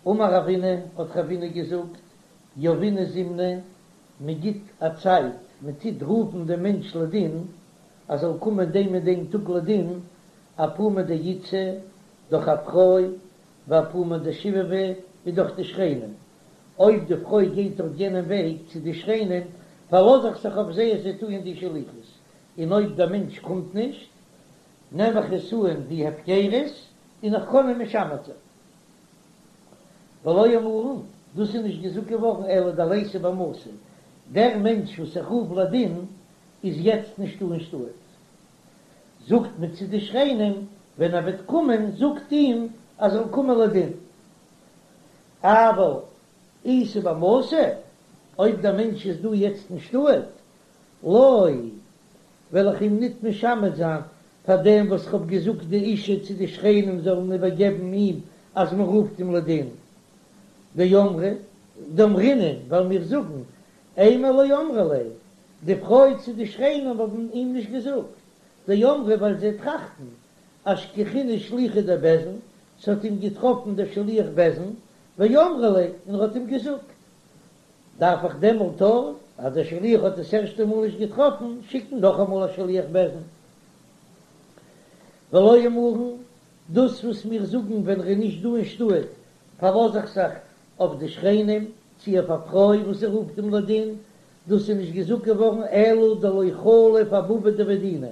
אמר רבינא, האט רבינא געזאגט, יהבינן זימנא, מען גיט א צייט, מען טוט רופן דעם מענטש לדין, ער זאל קומען דעם און דעם טאג לדין, אפומא דאיתתא, דורך א פרוי, ואפומא דשיבבי, און דורך די שכנים. אויב די פרוי גייט דורך יענעם וועג צו די שכנים, פארלאז איך זיך אויף זיי אז זיי טוען די שליחות, און אויב דער מענטש קומט נישט, נעם איך עס אן ווי הפקרות, און איך קען אים משמת זיין. ולא אמרן, דאס איז נישט געזאגט געווארן אלא דליתא במתא, דער מענטש וואס איך רוף לדין איז יעצט נישטא אין שטאט. זאגט מען צו די שכנים, ווען ער וועט קומען זאגט אים ער זאל קומען לדין. אבל איתא במתא, אויב דער מענטש איז דא יעצט אין שטאט, לא, וועל איך אים ניט משמת זיין פאר דעם וואס כ'האב געזאגט די אשה צו די שכנים זאלן איבערגעבן אים אז מען רופט אים לדין. דאמרי, דאמרינן, ווייל מיר זאגן, אימא לא אמרה ליה, די פרוי צו די שכנים האבן אים נישט געזאגט, דאמרי ווייל זיי טראכטן, אשכחינהו שליחא דבית דין, ס'האט אים געטראפן דער שליח בית דין, ואמרה ליה, און ער האט אים געזאגט. דארף איך דעמאלט אויך, אז דער שליח האט עס ערשטע מאל נישט געטראפן, שיקן נאכאמאל א שליח בית דין? ולא אמרן, דאס וואס מיר זאגן ווען ר'איז נישט דא אין שטאט, פארלאז איך זיך אויף די שכנים, צי אויף א פרוי וואס זי רופט אים לדין, דאס איז נישט געזאגט געווארן אלא דלא חליף אבבא דבי דינא,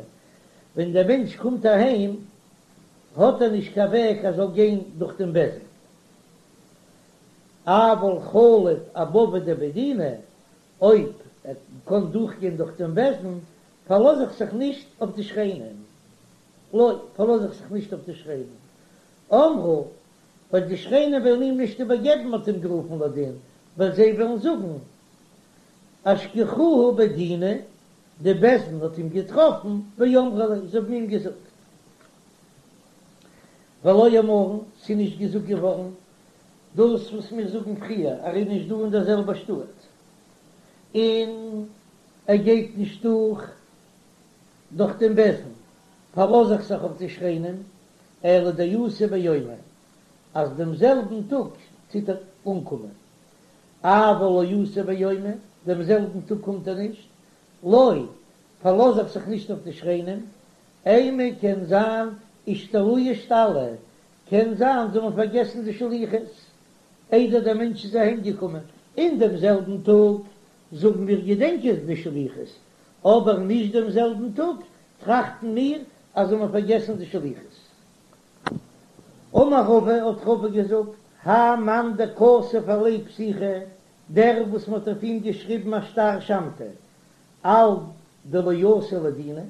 ווען דער מענטש קומט אהיים האט ער נישט קיין וועג ער זאל גיין דורך דעם בית דין. אבל חליף אבבא דבי דינא, אויב ער קען דורכגיין דורך דעם בית דין, פארלאז איך זיך נישט אויף די שכנים. לא, פארלאז איך זיך נישט אויף די שכנים. אמרי, ווייל די שכנים וועלן אים נישט איבערגעבן מ'האט אים גערופן לדין, ווייל זיי וועלן זאגן, אשכחוהו בי דינא, די בית דין האט אים געטראפן, ואמרו ליה, זיי האבן אים געזאגט. ולא אמרן, ס'איז נישט געזאגט געווארן דאס וואס מיר זאגן פריער, ער איז נישט דא אין דער זעלבער שטאט, און ער גייט נישט דורך דורך דעם בית דין, פארלאז איך זיך אויף די שכנים, אלא דאתי ביומיה, אז דעם זעלבן טאג טוט ער אנקומען, אבל לא אתי ביומיה, דעם זעלבן טאג קומט ער נישט, לא, פארלאז איך זיך נישט אויף די שכנים, אימא קען זיין אישתלויי אשתלי, קען זיין זיי האבן פארגעסן די שליחות איידער דער מענטש איז אהיים געקומען, אין דעם זעלבן טאג זאגן מיר געדענקען די שליחות, אבער נישט דעם זעלבן טאג טראכטן מיר אז זיי האבן פארגעסן די שליחות. אמר רבא, האט רבא געזאגט, האי מאן דכתב עליה פתיחא, דער וואס מען האט אויף אים געשריבן א שטר שמתא, על דלא אתי לדינא,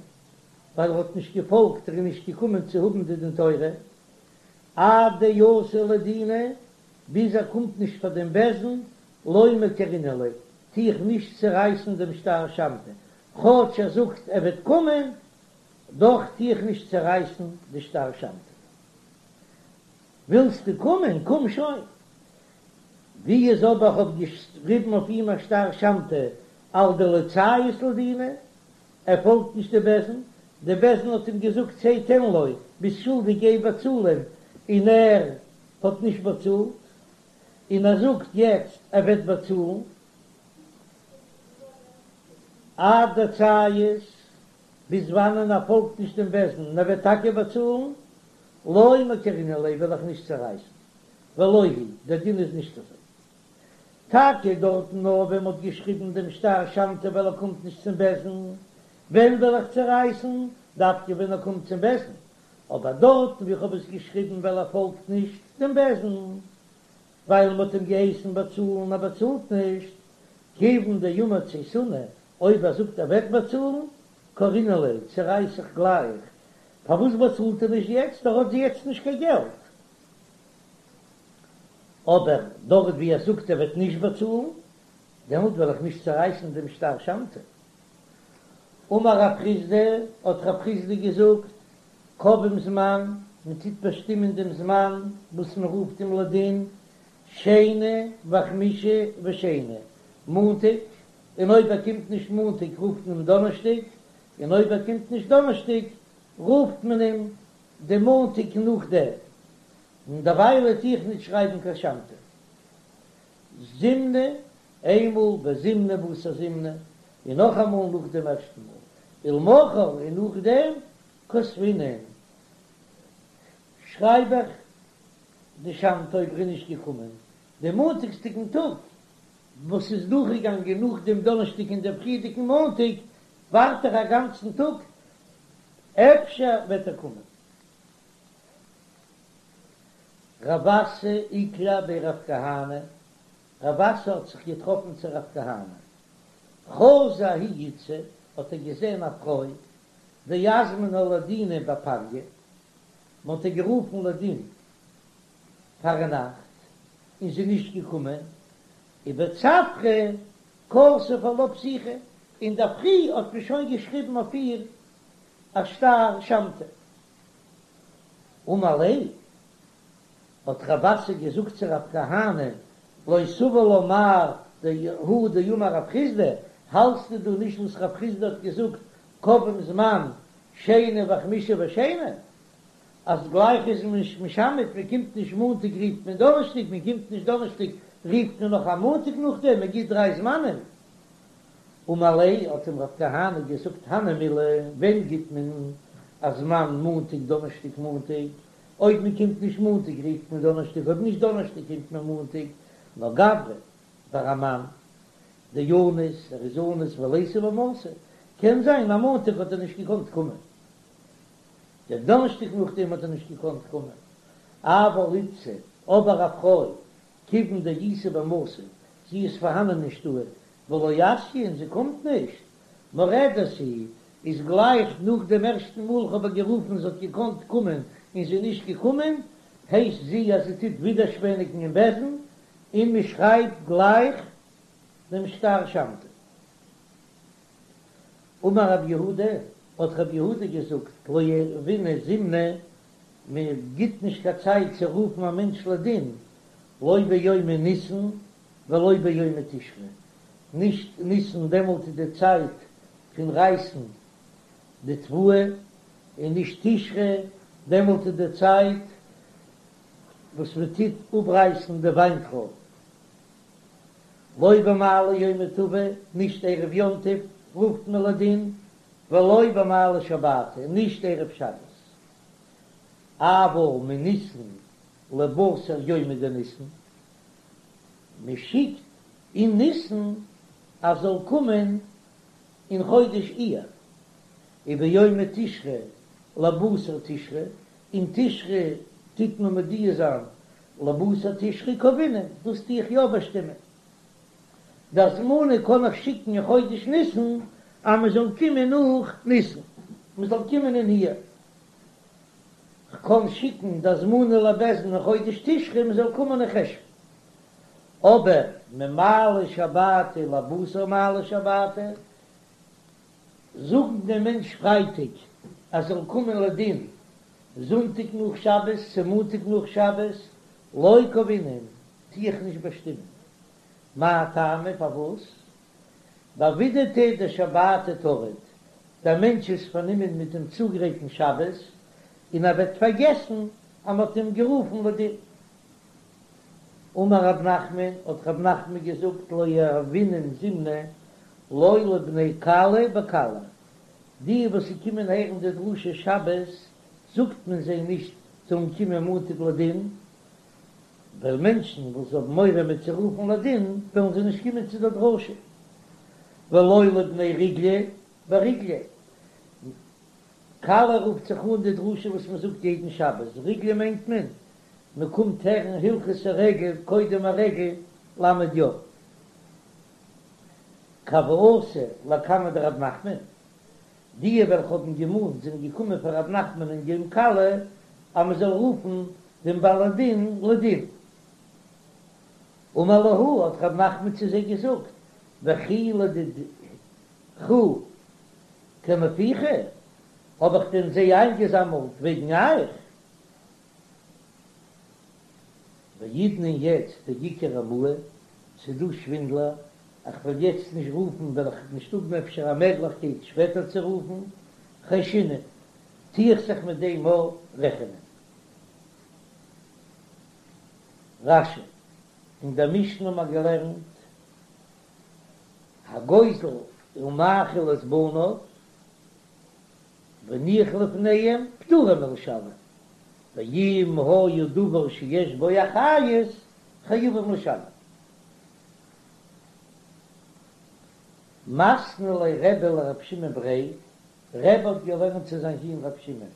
ווייל ער האט נישט געפאלגט, ער איז נישט געקומען צו האבן די דין תורה, עד דאתי לדינא, ביז ער קומט נישט פאר דעם בית דין, לא מקרעינן ליה, טו איך נישט צערייסן דעם שטר שמתא, כאטש ער זאגט ער וועט קומען, דאך טו איך נישט צערייסן די שטר שמתא. ווילסטו קומען, קום שוין. ווי איז אבער כ'האב געשריבן אויף אים א שטר שמתא על דלא ציית לדינא, ער פאלגט נישט די בית דין, די בית דין האט אים געזאגט צא תן לו, ביסט שולדיג גיי באצאל אים, און ער האט נישט באצאלט, און ער זאגט יעצט ער וועט באצאלן, עד דציית, ביז וואנען ער פאלגט נישט דעם בית דין און ער וועט טאקע באצאלן, לא מקרעינן ליה וועל איך נישט צערייסן, ולא היא, דער דין איז נישט אזוי. טאקע דארטן נאר ווען מ'האט געשריבן דעם שטר שמתא ווייל ער קומט נישט צום בית דין, ווען וועל איך צערייסן? דווקא ווען ער קומט צום בית דין, אבער דארטן ווי כ'האב עס געשריבן ווייל ער פאלגט נישט דעם בית דין, ווייל מ'האט אים געהייסן באצאלן ער באצאלט נישט, כיוון דאמר צייתנא, אויב ער זאגט ער וועט באצאלן, קרעינן ליה, צערייס איך גלייך, פארוואס באצאלט ער נישט יעצט, ער האט יעצט נישט קיין געלט. אבער דארט ווי ער זאגט ער וועט נישט באצאלן, דעמאלט וועל איך נישט צערייסן דעם שטר שמתא. אמר רב חסדא, האט רב חסדא געזאגט, קובעים זמן, מען טוט באשטימען דעם זמן וואס מען רופט אים לדין, שני וחמישי ושני, מאנטאג, און אויב ער קומט נישט מאנטאג רופט מען אים דאנערשטאג, און אויב ער קומט נישט דאנערשטאג רופט מען אים די מאנטאג נאכדעם, און דערוויילע טו איך נישט שרייבן קיין שמתא. זימנא, איינמאל וזימנא בתר זימנא, און נאכאמאל נאך דעם ערשטן מאל, ולמחר און נאכדעם כתבינן, שרייב איך דשמטה אויב ער איז נישט געקומען דעם מאנטאגסדיגן טאג וואס איז דורכגעגאנגען נאך דעם דאנערשטאג און דעם פריערדיגן מאנטאג, ווארט איך א גאנצן טאג אפשר וועט ער קומען. רב אסי איקלע בי רב כהנא, רב אסי האט זיך געטראפן צו רב כהנא, חזא ההיא איתתא, האט ער געזען א פרוי, דאזמנה לדינא בפניא, מען האט איר גערופן לדין פארנאכט, און זי איז נישט געקומען, ובצפרא כתוב עלה פתיחא, אינדערפרי האט מען שוין געשריבן אויף איר א שטר שמתא. אמר ליה, האט רב אסי געזאגט צו רב כהנא, לא סבר לה מר הא דאמר רב חסדא, האלטסטו דא נישט וואס רב חסדא האט געזאגט קובעים זמן שני וחמישי ושני, אז גלייך איז מען נישט משמת, מען קומט נישט מאנטאג רופט מען דאנערשטאג, מען קומט נישט דאנערשטאג רופט מען נאך א מאנטאג נאכדעם, מען גיט דריי זמנים. אמר ליה, האט אים רב כהנא געזאגט הני מילי, ווען גיט מען א זמן מאנטאג דאנערשטאג מאנטאג, אויב מען קומט נישט מאנטאג רופט מען דאנערשטאג, אויב נישט דאנערשטאג קומט מען מאנטאג, נאר גברא ביי א מאן דאניס, ער איז אנוס וליתא במתא, קען זיין אז מאנטאג האט ער נישט געקאנט קומען, דער דאנערשטאג נאכדעם האט ער נישט געקאנט קומען, אבל איתתא, אבער א פרוי, כיוון דאיתא במתא, זי איז פארהאנען אין שטאט, ולא אתיא און זי קומט נישט, מורדת היא, איז גלייך נאך דעם ערשטן מאל כ'האב איר גערופן זי האט געקאנט קומען און זי איז נישט געקומען, הייסט זי אז זי טוט ווידערשפעניגן אין בית דין, און מען שרייבט גלייך דעם שטר שמתא. אמר רב יהודה, האט רב יהודה געזאגט, לא יהבינן זימנא, מען גיט נישט קיין צייט צו רופן א מענטש לדין, לא ביומי ניסן ולא ביומי תשרי, נישט ניסן דעמאלט איז די צייט פון רייסן די תבואה, און נישט תשרי דעמאלט איז די צייט וואס מען טוט אפרייסן די וויינטרויב. לא במעלי יומא טבא, נישט ערב יום טוב רופט מען לדין, ולא במעלי שבתא, נישט ערב שבת. אבל מניסן לבתר יומא דניסן, מען שיקט אין ניסן אז זאל קומען אין חודש אייר, וביומי תשרי לבתר תשרי, אין תשרי טוט מען מודיע זיין לבתר תשרי קבעינן, דאס טו איך יא באשטימען. די הזמנה קען איך שיקן אין חודש ניסן אז מען זאל קומען נאך ניסן, מען זאל קומען אין אייר. כ'קען שיקן די הזמנה לבית דין אין חודש תשרי מען זאל קומען אין חשון. אבער ממעלי שבתא לבתר מעלי שבתא, זאגן דעם מענטש פרייטאג אז זאל קומען לדין זונטאג נאך שבת צו מאנטאג נאך שבת, לא קבעינן, טו איך נישט באשטימען. מאי טעמא פארוואס? בעבידתיה דשבתא טריד, דער מענטש איז פארנומען מיט דעם צוגרייטן שבת, און ער וועט פארגעסן אז מען האט אים גערופן לדין. אמר רב נחמן, האט רב נחמן געזאגט לא יהבינן זימנא לא לבני כלה בכלה, די וואס קומען הערן די דרשה שבת זאגט מען זיי נישט זאלן קומען מאנטאג לדין, ווייל מענטשן וואס האבן מורא מ'עט זיי רופן לדין וועלן זיי נישט קומען צו דער דרשה, ולא לבני ריגלא בריגלא, כלה רופט זיך אן די דרשה וואס מען זאגט יעדן שבת, ריגלא מיינט מען מען קומט הערן הלכות הרגל קודם הרגל ל' יום. כי הוו אתו לקמיה דרב נחמן, די וועלכע האבן געמאנט זענען געקומען פאר רב נחמן אין יום כלה אז מען זאל רופן דעם בעל הדין לדין. אמר להו, האט רב נחמן צו זיי געזאגט, וכי לדידכו קנפיכו, האב איך דען זיי איינגעזאמלט וועגן אייך? והאידנא יעצט דאיכא רמאי, ס'דא שווינדלער, איך וועל יעצט נישט רופן וועל איך נישט האבן אפשר א מעגליכקייט שפעטער צו רופן, חיישינן, טו איך זיך מיט דעם מאל רעכענען. רש"י. אין דער משנה האט מען געלערנט, הגוזל ומאכיל את בניו והניח לפניהם פטורין מלשלם, ואם היה דבר שיש בו אחריות חייבים לשלם. מתני ליה רבי לרב שמעון בריה, רבי האט געלערנט צו זיין זון רב שמעון,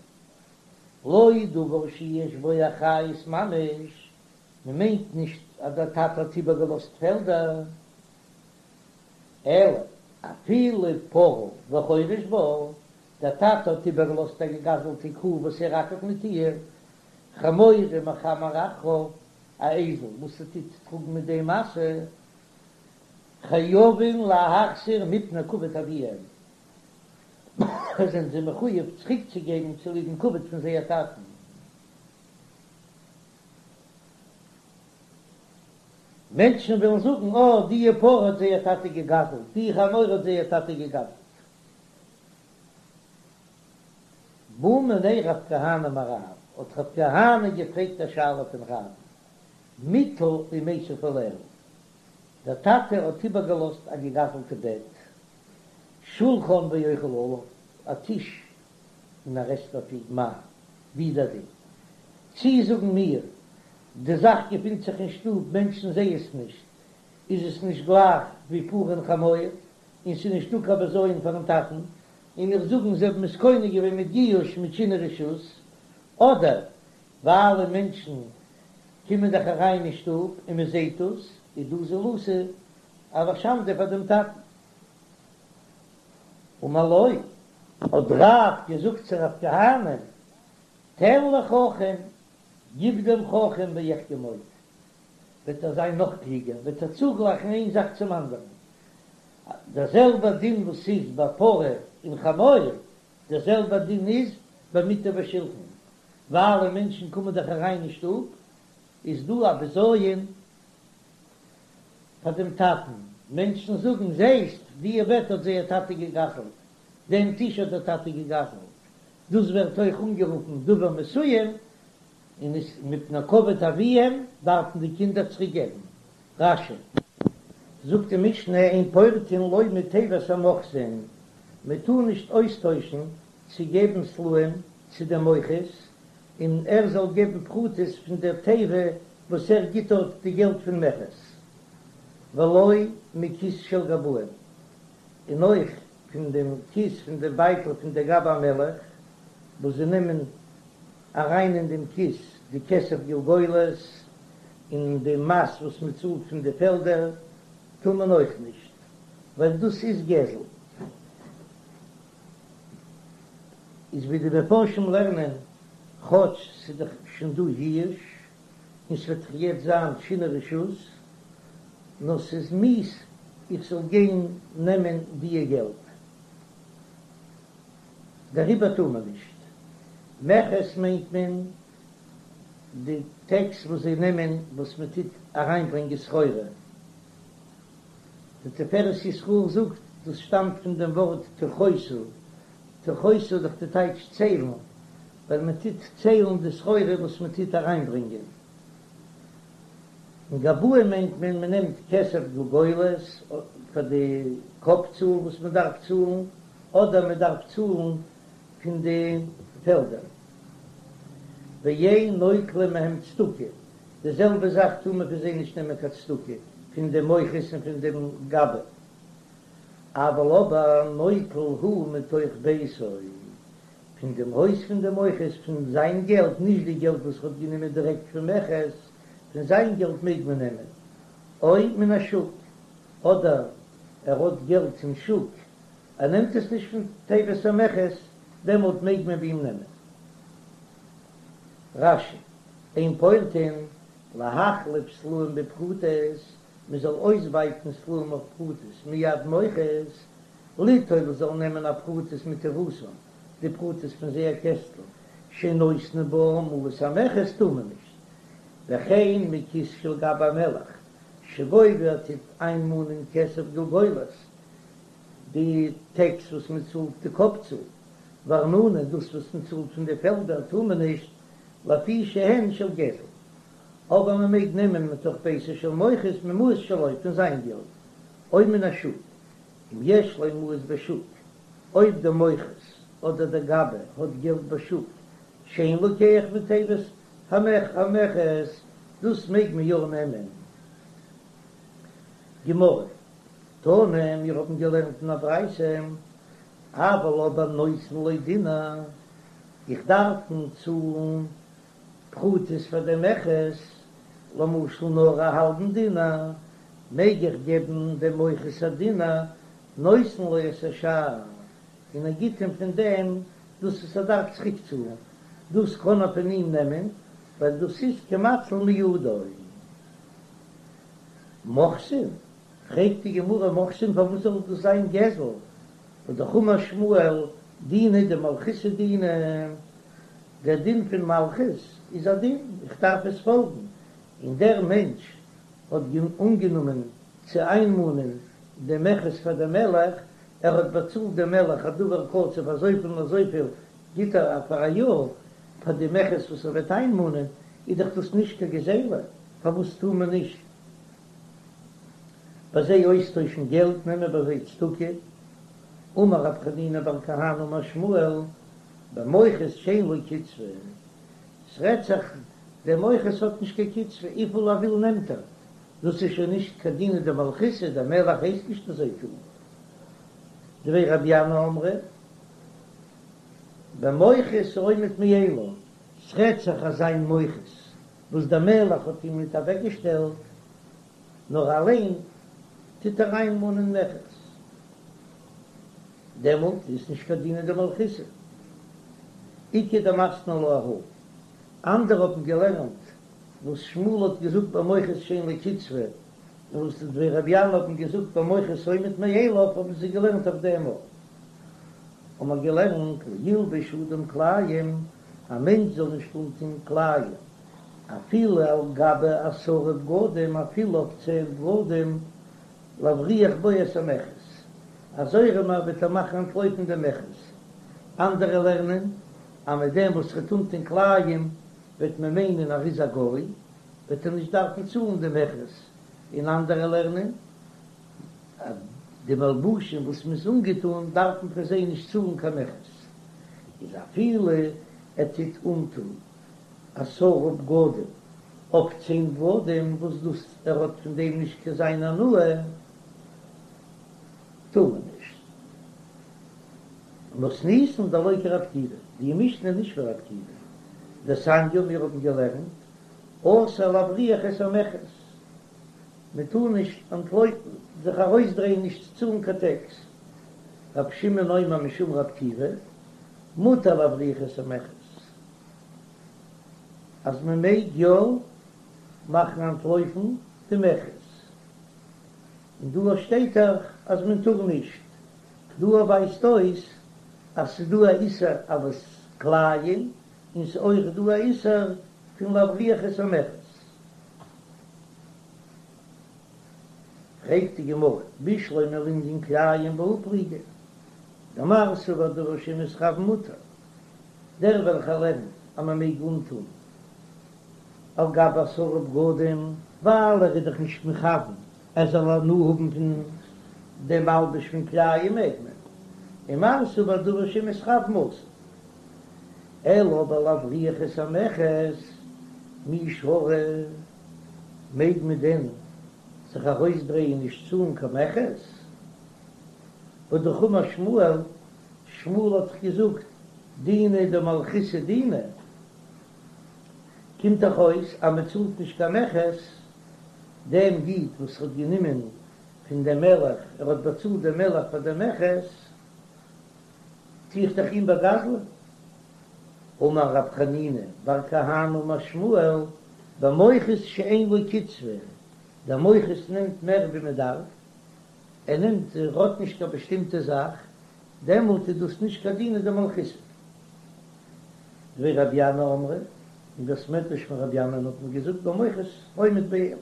לא דבר שיש בו אחריות ממש, מען מיינט נישט אז דער טאטע האט איבערגעלאזט פעלדער, אלא אפילו פרה וחורש בה, דער טאטע האט איבערגעלאזט א געגזלטע קו וואס ער אקערט מיט איר, חמור ומחמר אחריו, א אייזל וואס ער טוט טראגן מיט דעם משא, חייבין להחזיר מפני כבוד אביהם, זענען זיי מחויב צוריקצוגעבן צוליב'ן כבוד פון זייער טאטן. מענטשן וועלן זאגן, אה, דיע פרה האט זייער טאטע געגזלט, די חמור האט זייער טאטע געגזלט. בעא מיניה רב כהנא מרב, האט רב כהנא געפרעגט א שאלה פון רב, מטה ומיסב עליה, דער טאטע האט איבערגעלאזט א געגזלטע בעט, שולחן ואוכל עליו, א טיש און ער עסט אויף אים, מהו, ווי איז דער דין? צי זאגן מיר, די זאך געפינט זיך אין שטוב, מענטשן זעען עס נישט, איז עס נישט גלייך ווי פרה און חמור, און ס'איז נישטא קיין בזיון פארן טאטן, און מיר זאגן זיי האבן עס קונה געווען מיט ייאוש מיט שינוי רשות, אדער ווייל מענטשן קומען דאך אריין אין שטוב און מען זעט דאס, איז דא זילותא א שאנדע פאר דעם טאטן. אמר לו, האט רב געזאגט צו רב כהנא, תן לחכם, גיב דעם חכם ויחכם עוד, וועט ער זיין נאך קלוגער, וועט ער צוגלייכן איין זאך צום אנדערן, דער זעלבער דין וואס איז ביי פרה און חמור, דער זעלבער דין איז ביי מטה ושלחן, ווייל מענטשן קומען דאך אריין אין שטוב, איז דא א בזיון פאר דעם טאטן, מענטשן זאגן, זעסט, דיע בעט האט זייער טאטע געגזלט, דעם טיש האט דער טאטע געגזלט, דאס ווערט אויך אנגערופן דבר מסוים, און איז מפני כבוד אביהם דארפן די קינדער צוריק געבן. רש"י. זאגט די משנה אין פורטין לא מתיבת המוכסין, מען טאר נישט אויסטוישן צו געבן סלעים צו דעם מוכס, און ער זאל געבן פרוטות פון דער תיבה וואס ער גיט דארט די געלט פון מכס, ולא מכיס של גבאים, און אויך פון דעם כיס פון דעם בייטל פון דער גבאי המלך, וואס זיי נעמען אריין אין דעם כיס די כסף גולגולת און די מס וואס מען צאלט פון די פעלדער, טאר מען אויך נישט, ווייל דאס איז גזל. איז ווי די מפרשים לערנען, כאטש ס'איז דאך שוין דא ייאוש, און ס'וועט דאך יעצט זיין שינוי רשות, נאר ס'איז מיאוס איך זאל גיין נעמען דיע געלט, דעריבער טאר מען נישט. מכס מיינט מען די טעקס וואס זיי נעמען וואס מען טוט אריינברענגען סחורה. די תפארת ישראל זאגט דאס שטאמט פון דעם ווארט תכוסו, תכוסו איז דאך די טייטש ציילן, ווייל מען טוט ציילן די סחורה וואס מען טוט אריינברענגען. און גבאים מיינט מען מען נעמט כסף גולגולת פאר די קאפ צאל וואס מען דארף צאלן, אדער מען דארף צאלן פון די פעלדער. ואין נוטלים מהם צדקה, די זעלבע זאך טאר מען פון זיי נישט נעמען קיין צדקה, פון דעם מוכס און פון דעם גבאי. אבל אבער נוטל הוא מתוך ביתו, פון דעם הויז פון דעם מוכס, פון זיין געלט, נישט די געלט וואס ער האט גענומען דירעקט פון מכס, פון זיין געלט מעג מען נעמען, או מן השוק, אדער ער האט געלט אין שוק, ער נעמט עס נישט פון תיבת המכס, דעמאלט מעג מען ביי אים נעמען. רש"י, אין פורטין להחליף סלעים בפרוטות, מען זאל אויסבייטן סלעים אויף פרוטות מיד מוכס, ליטול זאל נעמען הפרוטות מתיבתן, די פרוטות פון זייער קעסטל, שנותנין בה מעות המכס טאר מען נישט, וכן מכיס של גבאי המלך, שגובה ער טוט איינמאנען כסף גולגולת, די טעקס וואס מען צאלט די קאפ צאל, וארנונה דאס וואס מען צאלט פון די פעלדער טאר מען נישט, לפי שהן של גזל. אבער מען מעג נעמען מתוך ביתו של מוכס ממעות שלו פון זיין געלט, או מן השוק, אם יש לו מעות בשוק, אויב דער מוכס אדער דער גבאי האט געלט בשוק, שאין לוקח מתיבת המכס, דאס מעג מען יא נעמען. גמרא, תנא, מיר האבן געלערנט אין א ברייתא, אבל אבער נותן לו דינר, איך דארף אים צאלן פרוטות פאר דעם מכס, למשל נאר א האלבן דינר, מעג איך געבן דעם מוכס א דינר, נותן לו את השאר, און ער גיט אים פון דעם דאס וואס ער דארף צוריק צאלן, דאס קען ער פון אים נעמען, ווייל דאס איז כמציל מידו. מוכסין? פרעגט די גמרא מוכסין פארוואס זאל דאס זיין גזל? והא אמר שמואל דינא דמלכותא דינא, דער דין פון מלכות איז א דין, איך דארף עס פאלגן, און דער מענטש האט אנגענומען צו איינמאנען דעם מכס פאר דעם מלך, ער האט באצאלט דעם מלך א דבר קצוב אזויפיל און אזויפיל גיט ער פאר א יאר פאר די מכס וואס ער וועט איינמאנען, איז דאך דאס נישט קיין גזילה, פארוואס טאר מען נישט ביי זיי אויסטוישן געלט, נעמען ביי זיי צדקה? אמר רב חנינא בר כהנא אמר שמואל, במוכס שאין לו קצבה, ס'רעדט זיך דער מוכס האט נישט קיין קצבה, וויפיל ער וויל נעמט ער, דאס איז שוין נישט קיין דינא דמלכותא, דער מלך הייסט נישט אזוי טון. דבי רבי ינאי אמרי, במוכס העומד מאליו, ס'רעדט זיך אזא מוכס וואס דער מלך האט אים ניט אוועקגעשטעלט, נאר אליין טוט ער איינמאנען מכס, דעמאלט איז נישט קיין דינא דמלכותא. איכא דמתני לה אהא. אנדערע האבן געלערנט וואס שמואל האט געזאגט במוכס שאין לו קצבה, און וואס די דבי רבי ינאי האבן געזאגט במוכס העומד מאליו האבן זיי געלערנט אויף דעם אויך. האבן מיר געלערנט לא ילבש אדם כלאים, א מענטש זאל נישט אנטון כלאים אפילו על גבי עשרה בגדים, אפילו אויף צען בגדים, להבריח בו את המכס, אזוי ארום וועט ער מאכן אנטלויפן דעם מכס. אנדערע לערנען אז מיט דעם וואס ער וועט אנטון כלאים וועט מען מיינען ער איז א גוי, וועט ער נישט דארפן צאלן די מכס, און אנדערע לערנען אז די מלבושים וואס מ'איז אנגעטון דארף מען פאר זיי נישט צאלן קיין מכס, איז אפילו ער טוט אנטון עשרה בגדים אויף צען בגדים וואס דאס ער האט פון דעם נישט קיין זיין הנאה, טאר מען נישט. מתניתין דלא כרבי עקיבא, די משנה איז נישט ווי רבי עקיבא, דתניא מיר האבן געלערנט אסור להבריח את המכס, מען טאר נישט אנטלויפן, זיך ארויסדרייען נישט צו צאלן קיין טעקס, רבי שמעון אומר משום רבי עקיבא, מותר להבריח את המכס, אז מען מעג יא מאכן אנטלויפן די מכס, און דא שטייט דאך אז מען טאר נישט, דא ווייזט אויס אז ס'איז דא א איסור אלס כלאים, און ס'איז אויך דא א איסור פון להבריח את המכס. פרעגט די גמרא, בשלמא לענין כלאים בהא פליגי, דמר סבר דבר שמתכוין מותר, דער וועלכער לערנט אז מען מעג אנטון על גבי עשרה בגדים, ווייל ער איז דאך נישט מכוון ער זאל הנאה האבן פון דעם מלבוש פון כלאים מעג מען, ומר סבר דבר שמתכוין אסור, אלא אבער להבריח את המכס מי שרי, מעג מען דען זיך ארויסדרייען נישט צאלן קיין מכס? והא אמר שמואל, שמואל האט דאך געזאגט דינא דמלכותא דינא, קומט דאך אויס אז מען צאלט נישט קיין מכס, דעם איד וואס האט גענומען פון דעם מלך, ער האט באצאלט דעם מלך פאר דעם מכס, טו איך דאך אים באגזל'ען. אמר רב חנינא בר כהנא אמר שמואל, במוכס שאין לו קצבה, דער מוכס נעמט מער ווי מען דארף, ער נעמט, ער האט נישט קיין באשטימטע זאך, דעמאלט איז דאס נישט קיין דינא דמלכותא. דבי רבי ינאי אמרי, אין בית מדרש פון רבי ינאי'ן האט מען געזאגט במוכס העומד מאליו.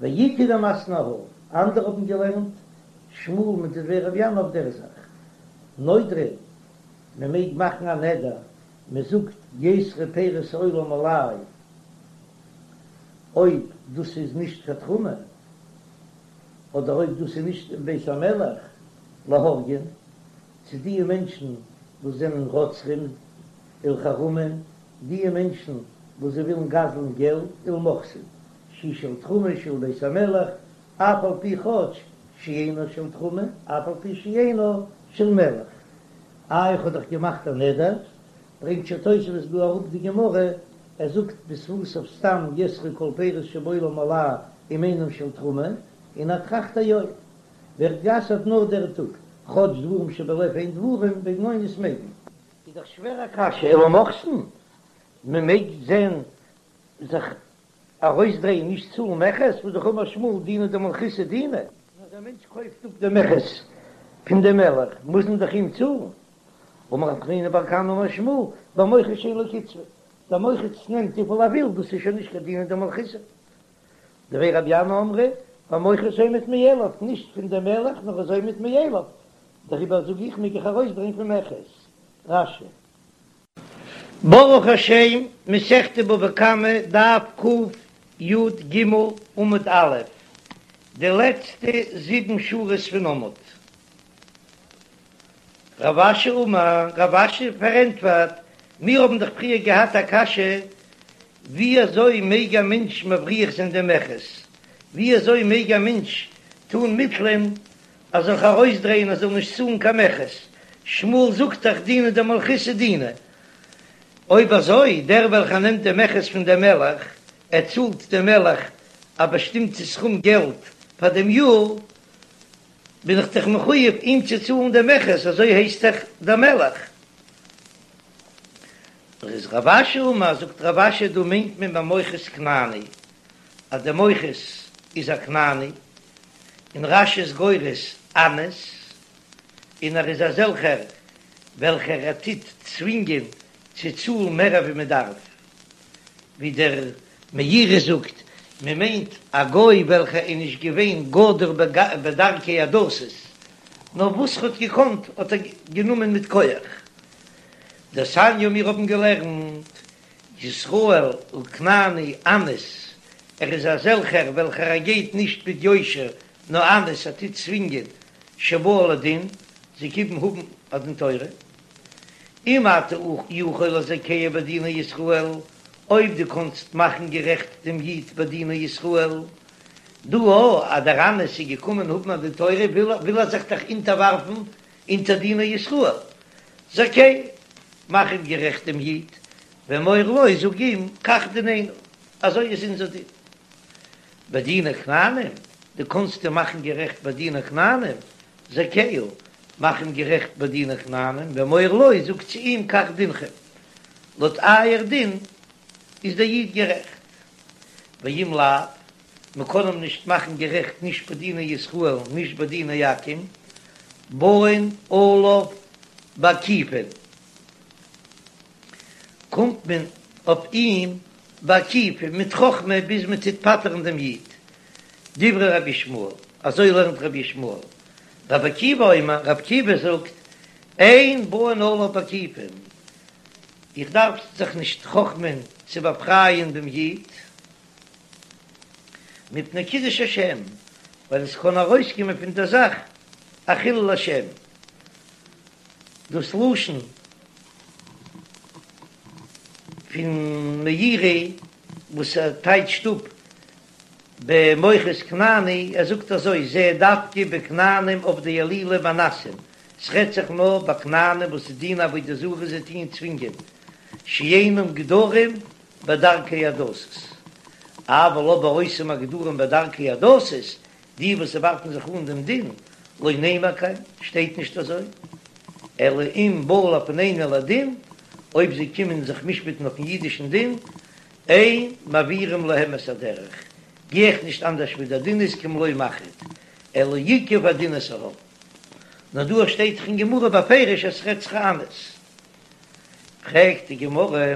ואיכא דמתני אהא, אנדערע האבן געלערנט שמואל מיט דבי רבי ינאי אויף דער זאך. נודרין, מען מעג מאכן א נדר, מען זאגט יאסרו פירות העולם עלי. אויב דאס איז נישט קיין תרומה, אדער אויב דאס איז נישט אין בית המלך, להורגין, צו דיע מענטשן וואס זענען רוצחים, ולחרמים, דיע מענטשן וואס זיי ווילן גזל'ן געלט, ולמוכסין, שהיא של תרומה שהיא לבית המלך, אף על פי כאטש שאינה של תרומה, אף על פי שאינה של מלך. איי איך האב דאך געמאכט א נדר, ברענגט שוין תוספות דא אראפ די גמרא, ער זאגט בשפתיו סתם יאסרו כל פירות שבעולם עלי אם אינם של תרומה, און ער טראכט א יום ווערט גע'אסר'ט נאר דער טאג, כאטש דברים שבלב הן דברים, וועגן אונס מעג מען. איז דאך שווער א קשיא, ולמוכסין, מען מעג זען זיך ארויסדרייען נישט צאלן מכס, והא דאך אמר שמואל דינא דמלכותא דינא. אז א מענטש קויפט אפ די מכס פון דעם מלך מוז מען דאך אים צאלן. אמר רב חנינא בר כהנא אמר שמואל, במוכס שאין לו קצבה, דער מוכס נעמט וויפיל ער וויל, דאס איז שוין נישט קיין דינא דמלכותא. דבי רבי ינאי אמרי, במוכס העומד מאליו, נישט פון דעם מלך נאר איז עומד מאליו, דעריבער זאג איך מעג איך ארויסדרייען פון מכס. רש"י. ברוך השם, מסכת בבא קמא, דף קי"ג עמוד א', די לעצטע זיבן שורות פון עמוד. רב אשי אמר, רב אשי פארענטפערט, מיר האבן דאך פריער געהאט א קשיא, ווי אזוי מעג א מענטש מבריח זיין דעם מכס? ווי אזוי מעג א מענטש טון מיטלען ער זאל זיך ארויסדרייען ער זאל נישט צאלן קיין מכס? שמואל זאגט דאך דינא דמלכותא דינא. אויב אזוי, דער וועלכער נעמט דעם מכס פון דעם מלך, ער צאלט דעם מלך א באשטימטע סכום געלט פאר דעם יאר, בין איך דאך מחויב אים צו צאלן דעם מכס, אזוי הייסט דאך דער מלך. איז רב אשי אמר, זאגט רב אשי דא מיינט מען במוכס כנעני, אז דער מוכס איז א כנעני, און רש"י איז גורס אנס, און ער איז אזעלכער וועלכער ער טוט צווינגען צו צאלן מער ווי מען דארף, ווי דער מאירי זאגט, מען מיינט א גוי וועלכער איז נישט געווען גדור בדרכי הדתות, נאר וואס ר'האט געקאנט האט ער גענומען מיט כח. דתניא מיר האבן געלערנט, ישראל וכנעני אנס, ער איז אזעלכער וועלכער ער גייט נישט מיט יושר, נאר אנס ער טוט צווינגען שבאו לדין, זיי קומען האבן א דין תורה. אם אתה יכול לזכהו בדיני ישראל, אויב דו קאנסט מאכן גערעכט דעם איד בדיני ישראל, דא אז דער אנס איז געקומען האבן א דין תורה וויל ער זיך דאך אונטערווארפן אונטער דיני ישראל, זכהו, מאך אים גערעכט דעם איד, ואמור לו, זאג אים, כך דיננו, אזוי איז אונזער דין. בדיני כנענים, דו קאנסט אים מאכן גערעכט בדיני כנענים, זכהו, מאך אים גערעכט בדיני כנענים, ואמור לו, זאג צו אים, כך דינכם, לויט אייער דין איז דער איד גערעכט. ואם לאו, מען קען אים נישט מאכן גערעכט נישט בדיני ישראל נישט בדיני עכו"ם, באין עליו בעקיפין, קומט מען אויף אים בעקיפין מיט חכמה ביז מען טוט פטר'ן דעם איד, דברי רבי ישמעאל, אזוי לערנט רבי ישמעאל, רבי עקיבא אומר, רבי עקיבא זאגט, אין באין עליו בעקיפין, איך דארף זיך נישט חכמ'ען צו באפרייען דעם איד, מפני קידוש השם, ווייל עס קען ארויסקומען פון דער זאך א חילול השם, דאס לשון פון מאירי וואס ער טייטשט אפ במוכס כנעני, ער זאגט אזוי, זה דווקא בכנענים עובדי אלילים ואנסים, ס'רעדט זיך נאר ביי כנענים וואס דינען עבודה זרה זיי טוען צווינגען, שאינם גדורים בדרכי הדתות, אבל אבער אותם הגדורים בדרכי הדתות, די וואס ווארפן זיך אן דעם דין, לא נאמר כן, שטייט נישט אזוי, אלא אם באו לפנינו לדין, אויב זיי קומען זיך משפט'ן אויפן אידישן דין, אין מעבירים להם את הדרך, גיי איך נישט אנדערש ווי דער דין איז כמלא מחט, אלא ייקוב הדין את ההר. נאר דא שטייט דאך אין גמרא בפירוש אז ס'רעדט זיך אנס. פרעגט די גמרא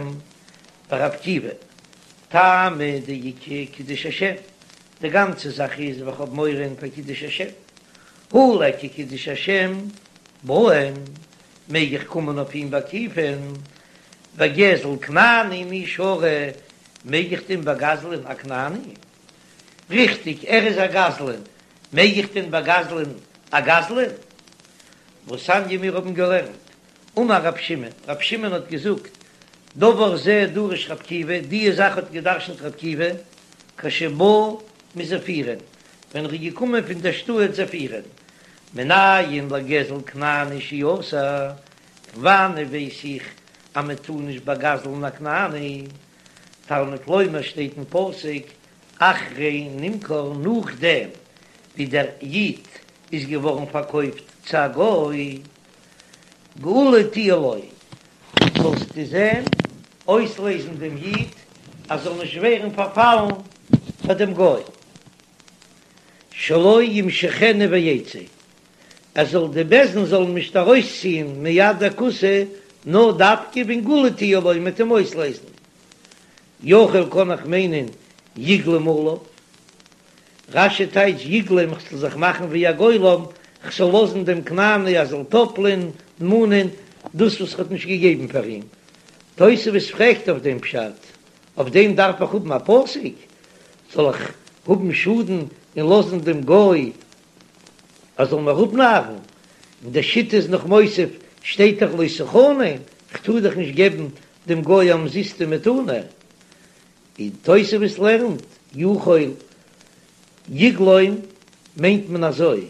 ורבי עקיבא, טעמא דאיכא קידוש השם, די גאנצע זאך איז ווייל כ'האב מורא פאר קידוש השם, הא ליכא קידוש השם באין, מעג איך קומען אויף אים בעקיפין, וגזל כנעני מי שרי? מעג איך דען באגזלען א כנעני? ריכטיג, ער איז א גזלן, מעג איך דען באגזלען א גזלן? והתניא מיר האבן געלערנט, אמר רב שמעון, רב שמעון האט געזאגט, דבר זה דרש רב עקיבא, דיע זאך האט געדרשנט רב עקיבא, כשבא מזפירין, ווען ער איז געקומען פון דער שטאט זפירין, מנין לגזל כנעני שהוא אסור, פון וואנען ווייס איך אז מען טאר נישט באגזל'ן א כנעני? תלמוד לומר שטייט אין פסוק אחרי נמכר נאכדעם ווי דער איד איז געווארן פארקויפט צו א גוי, גאולה תהיה לו, זאלסטו זען אויסלעזן דעם איד אז זאל נישט ווערן פארפאלן פאר דעם גוי, שלא ימשכנו ויצא, ער זאל די בית דין זאלן נישט ארויסציען מיד הכותי, נאר דווקא ווען גאולה תהיה לו מ'וועט אים אויסלעזן. יכול קען איך מיינען יגלום עליו. רש"י טייטש יגלום כ'זאל זיך מאכן ווי א גולם, כ'זאל לאזן דעם כנעני ער זאל טאפלען, מאנען, דאס וואס כ'האט נישט געגעבן פאר אים. תוספות פרעגט אויף דעם פשט, אויף דעם דארף איך האבן א פסוק? זאל איך האבן שאדן און לאזן דעם גוי ער זאל מיר אפנארן, און די שיטה איז נאך מוסיף, שטייט דאך לא תחנם, כ'טאר דאך נישט געבן דעם גוי א אומזיסטע מתנה, און תוספות לערנט, יכול יגלום מיינט מען אזוי,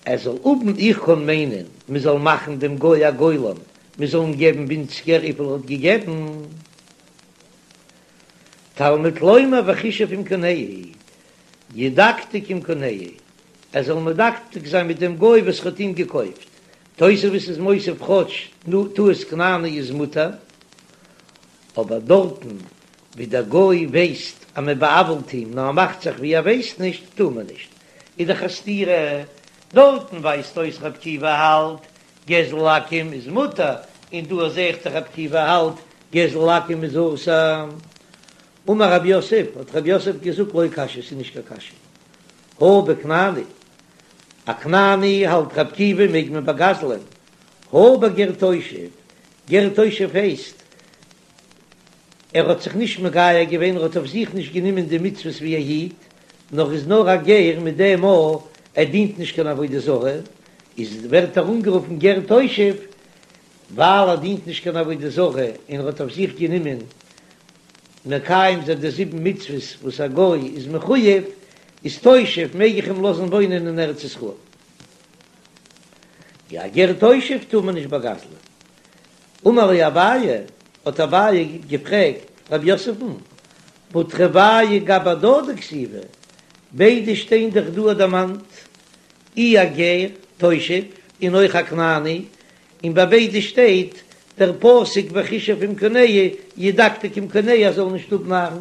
ער זאל האבן, איך קען מיינען, מען זאל מאכן דעם גוי א גולם, מען זאל אים געבן ווינציגער וויפיל ער האט געגעבן. תלמוד לומר וחישב עם קונהו, ידקדק עם קונהו, ער זאל מדקדק זיין מיט דעם גוי וואס האט אים געקויפט. תוספות איז מוסיף כאטש טעות כנעני איז מותר, אבער דארטן ווי דער גוי ווייסט אז מען בא'עוול'ט אים נאר ער מאכט זיך ווי ער ווייסט נישט, טאר מען נישט. איז דאך א סתירה, דארטן ווייזט אויס רב עקיבא האלט גזל עכו"ם איז מותר, און דא זעה איך דאך רב עקיבא האלט גזל עכו"ם איז אסור. אמר רב יוסף, האט רב יוסף געזאגט לא קשיא, ס'איז נישט קיין קשיא. הא בכנעני, א כנעני האלט רב עקיבא מעג מען באגזלען, הא בגר תושב, גר תושב הייסט ער האט זיך נישט מגייר געווען, ער האט אויף זיך נישט גענומען די מצוות ווי א איד, נאר איז נאר א גר מיט דעם אז ער דינט נישט קיין עבודה זרה, איז ווערט ער אנגערופן גר תושב, ווייל ער דינט נישט קיין עבודה זרה און ער האט אויף זיך גענומען מקיים זיין די זיבן מצוות וואס א גוי איז מחויב, איז תושב מעג איך אים לאזן וואוינען אין ארץ ישראל. יא גר תושב טאר מען נישט באגזלען. אמר ליה אביי, האט אביי געפרעגט רב יוסף'ן, והא תרוייהו גבי הדדי כתיבי, ביידע שטיין דאך דא דערמאנט, אי א גר תושב און אויך א כנעני, און ביי ביידע שטייט דער פסוק וחישב עם קונהו ידקדק עם קונהו ער זאל נישט אפנארן,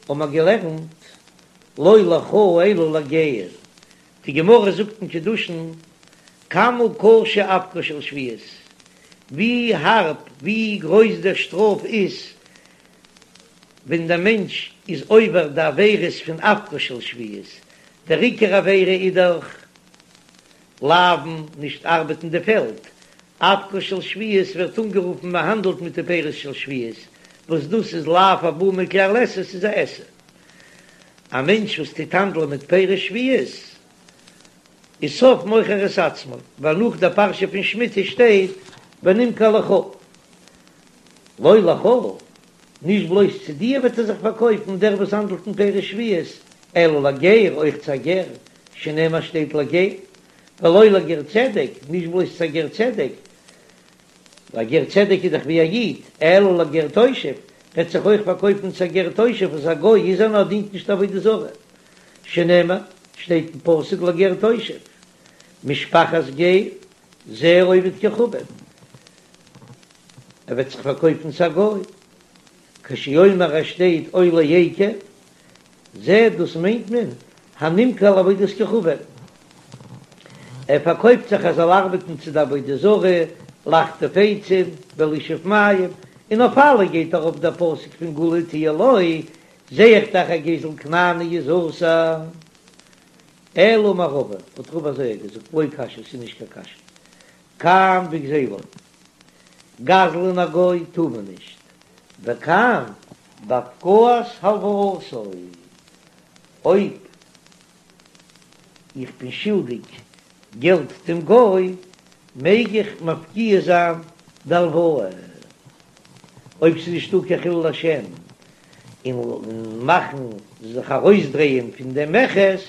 האבן מיר געלערנט לא לך אלא לגר, די גמרא זאגט אין קידושין כמה קשה אבקה של שביעית, ווי הארב ווי גרויס דער שטראף איז ווען דער מענטש איז עובר די עבירות פון אבקה של שביעית, דער עיקר עבירה איז דאך לאוין, נישט ארבעטן די פעלד, אבקה של שביעית ווערט אנגערופן מען האנדלט מיט די פירות של שביעית, וואס דאס איז לאו הבא מכלל עשה, ס'איז א עשה. א מענטש וואס טוט האנדלען מיט פירות שביעית איז סוף מוכר את עצמו, ווייל נאך דער פרשה פון שמיטה שטייט ונמכר לך, לא לך, נישט בלויז צו דיר וועט ער זיך פארקויפן דער וואס האנדלט אין פירות שביעית, אלא לגר, אויך צו א גר, שנאמר שטייט לגר, ולא לגר צדק, נישט בלויז צו א גר צדק, א גר צדק איז דאך ווי א איד, אלא לגר תושב, וועט זיך אויך פארקויפן צו א גר תושב וואס א גוי איז ער נאר דינט נישט עבודה זרה, שנאמר, שטייט אין פסוק לגר תושב, משפחת גר, זה עובד כוכבים, ער וועט זיך פארקויפן צו א גוי, כשהוא אומר עס שטייט או לעקר, זה דאס מיינט מען הנמכר לעבודת כוכבים, ער פארקויפט זיך ער זאל ארבעטן צו די עבודה זרה, לחטוב עצים ולשאוב מים, און אויף אלע גייט ארויף דער פסוק פון גאולה תהיה לו, זע איך דאך אז גזל כנעני איז אסור. אלא אמר רבא, האט רבא אזוי געזאגט, לא קשיא, ס'איז נישט קיין קשיא, כאן בגזילו, גזל'ן א גוי טאר מען נישט, וכאן. בהפקעת הלוואתו, אויב איך בין שולדיג געלט דעם גוי, מעג איך מפקיע זיין די הלוואה, אויב ס'איז נישטא קיין חילול השם, און מאכן זיך ארויסדרייען פון דעם מכס,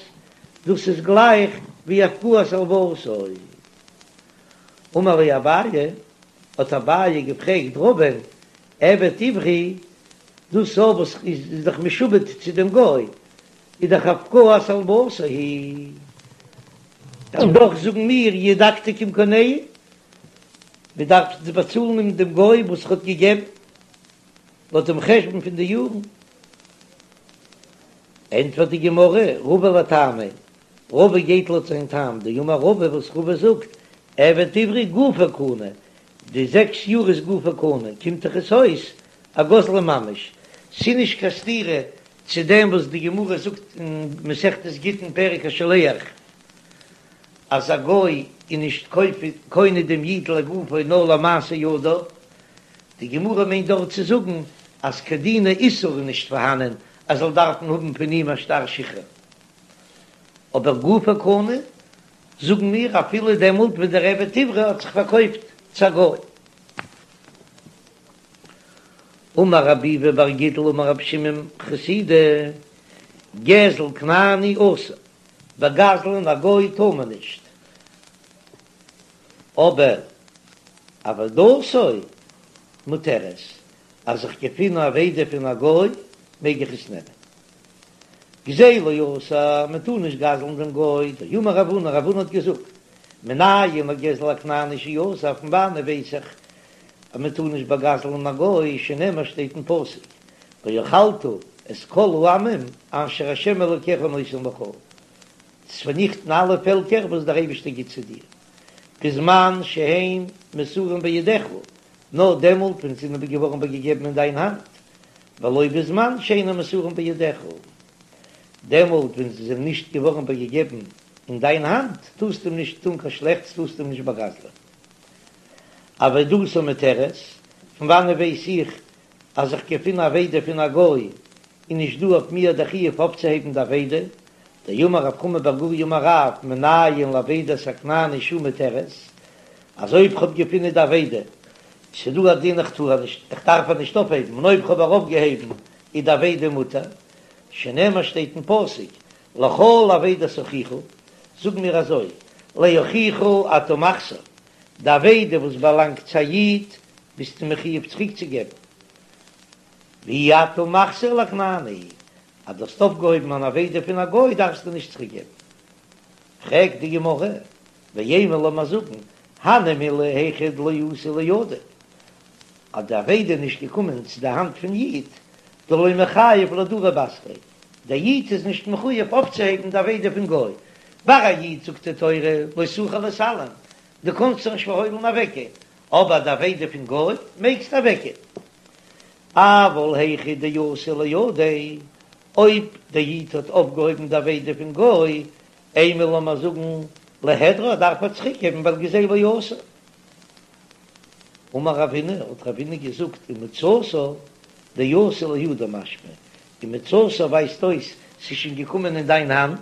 דאס איז גלייך ווי הפקעת הלוואתו. אמר ליה אביי, האט אביי געפרעגט רבא'ן, עבד עברי, דאס וואס איז דאך משועבד צו דעם גוי, איז דאך הפקעת הלוואתו היא. און דאך זאגן מיר ידקדק עם קונהו, מען דארף באצאלן אים דעם גוי וואס ער האט געגעבן, לויט דעם חשבון פון די יארן. ענטפערט די גמרא, רבא לטעמיה, רבא גייט לויט זיין טעם, דאמר רבא וואס רבא זאגט, עבד עברי גופו קנוי, די זעקס יאר איז גופו קנוי, קומט דאך עס אויס א גזלן ממש, ס'איז נישט קיין סתירה צו דעם וואס די גמרא זאגט אין מסכת גיטין פרק השולח אז א גוי איז נישט קונה דעם איד לגופו נאר למעשה ידיו, די גמרא מיינט דארט צו זאגן אז קיין דיני איסור איז נישט פארהאנען אז זאל דארפן האבן פון אים א שטר שחרור, אבער גופו קנוי זאגן מיר אפילו דעמאלט ווען דער עבד עברי האט זיך פארקויפט צו א גוי. אמר רב ביבי בר גידל אמר רבי שמעון חסידא, גזל כנעני אסור, באגזל'ן א גוי טאר מען נישט, אבער אבידתו מותרת, אז איך געפין א אבידה פון א גוי מעג איך עס נעמען. גזילו אסור, מען טאר נישט גזל'ן דעם גוי, דאמר רב הונא, רב הונא האט געזאגט, מנין לגזל הכנעני שאסור, פון וואנען ווייס איך אז מען טאר נישט באגזל'ן א גוי, שנאמר שטייט אין פסוק, ואכלת את כל העמים אשר ה' אלוקיך נותן לך, צו פארניכטן אלע פעלקער וואס דער אייבערשטער גיט צו דיר, בזמן שהן מסורים בידיך, נאר דעמאלט ווען זיי זענען געווארן איבערגעגעבן אין דיין האנט, ולא בזמן שאינן מסורים בידיך, דעמאלט ווען זיי זענען נישט געווארן איבערגעגעבן אין דיין האנט, טארסטו אים נישט טאן קיין שלעכטס, טארסטו אים נישט באגזלען. אבידתו מותרת, פון וואנען ווייס איך אז איך געפין א אבידה פון א גוי איז נישט דא אויף מיר דער חיוב אויפצוהייבן די אבידה, דאמר רב חמא בר גוריא אמר רב מנין לאבידת הכנעני שהיא מותרת, אז אויב כ'האב געפינען די אבידה, ס'דא א דין איך טאר נישט, איך דארף איר נישט אויפהייבן, און אויב כ'האב איר אויפגעהויבן איז די אבידה מותר, שנאמר שטייט אין פסוק לכל אבידת אחיך, זאג מיר אזוי, לאחיך אתה מחזיר, די אבידה וואס באלאנגט צו א איד ביסטו מחיוב צוריקצוגעבן, ואי אתה מחזיר לכנעני, אז דו האסט אויפגעהויבן אן אבידה פון א גוי דארפסטו נישט צוריקגעבן. פרעגט די גמרא, ואימא לאמיר זאגן, הני מילי היכא דלא אתא לידיה, אז די אבידה איז נישט געקומען צו די האנט פון איד, דלא מיחייב לאהדורי בתריה, דער איד איז נישט מחויב אויפצוהייבן די אבידה פון גוי, ביי א איד זאגט די תורה לא תוכל להתעלם, דו קאנסט זיך נישט פארהוילן אוועקגיין, אבער די אבידה פון גוי מעגסטו אוועקגיין. אבל היכא דאתא לידיה, אויב דער איד האט אויפגעהויבן די אבידה פון גוי, אימא לאמיר זאגן ליהדרה דארף ער צוריקגעבן ווייל גזילו אסור. אמר רבינא, האט רבינא געזאגט, ומצאתה דאתא לידו משמע, ומצאתה ווייזט אויס ס'איז שוין געקומען אין דיין האנט,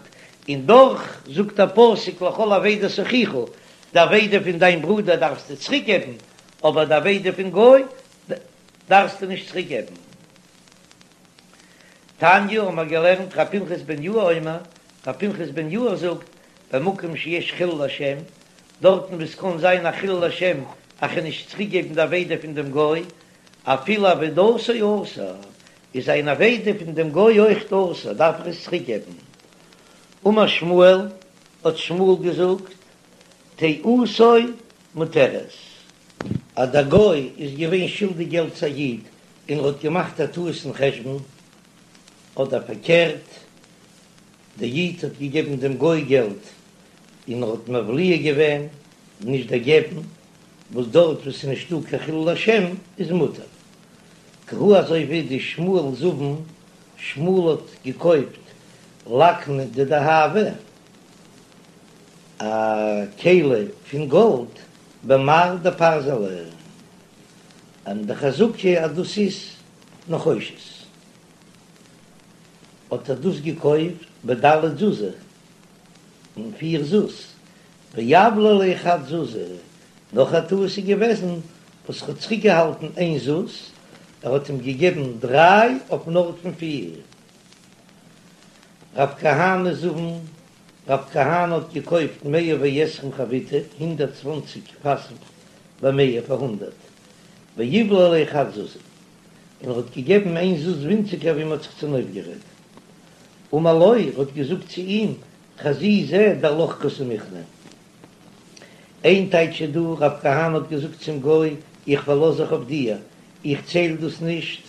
און דאך זאגט דער פסוק לכל אבידת אחיך, די אבידה פון דיין ברודער דארפסטו צוריק געבן, אבער די אבידה פון גוי דארפסטו נישט צוריק געבן. תניא האבן מיר געלערנט ר' פנחס בן יאיר אומר, ר' פנחס בן יאיר זאגט, במקום שיש חילול השם, דארטן וואו ס'קען זיין א חילול השם אז כ'וועל נישט צוריק געבן די אבידה פון דעם גוי, אפילו אבידתו אסור, איז זיין אבידה פון דעם גוי אויכט אסור, דארף איך עס צוריק געבן. אמר שמואל, האט שמואל געזאגט, טעותו מותרת. אז דער גוי איז געווען שולדיג געלט צו א איד און ער האט געמאכט א טעות אין חשבון, אדער פארקערט, דער איד האט געגעבן דעם גוי געלט און ער האט מבליע געווען, נישט דערגעבן, וואס דארט וואו ס'איז נישטא קיין חילול השם איז מותר. כי הא אזוי ווי דשמואל זבין, שמואל האט געקויפט לקנא דדהבא, א כלי פון גאלד במר דפרזלא, און די חזקה אז דאס איז נחושת. האט ער דאס געקויפט בד' זוזי, אין פיר זוז, ואבלע ליה חד זוזא, נאך א טעות איז געוועזן וואס ער האט צוריקגעהאלטן איין זוז, ער האט אים געגעבן דריי אויפן ארט פון פיר. רב כהנא זבן, רב כהנא האט געקויפט מאה ועשרים חביתי, 120 פאסן במאה פאר הונדערט, ואיבלע ליה חד זוזא, און ער האט געגעבן איין זוז ווינציגער ווי מען האט זיך צונויפגערעדט. אמר לו, ער האט געזאגט צו אים, חזי זע דעלך קסמיכנא. איין טייטש איז דא, רב כהנא האט געזאגט צום גוי, איך פארלאז זיך אויף דיר, איך צייל דאס נישט,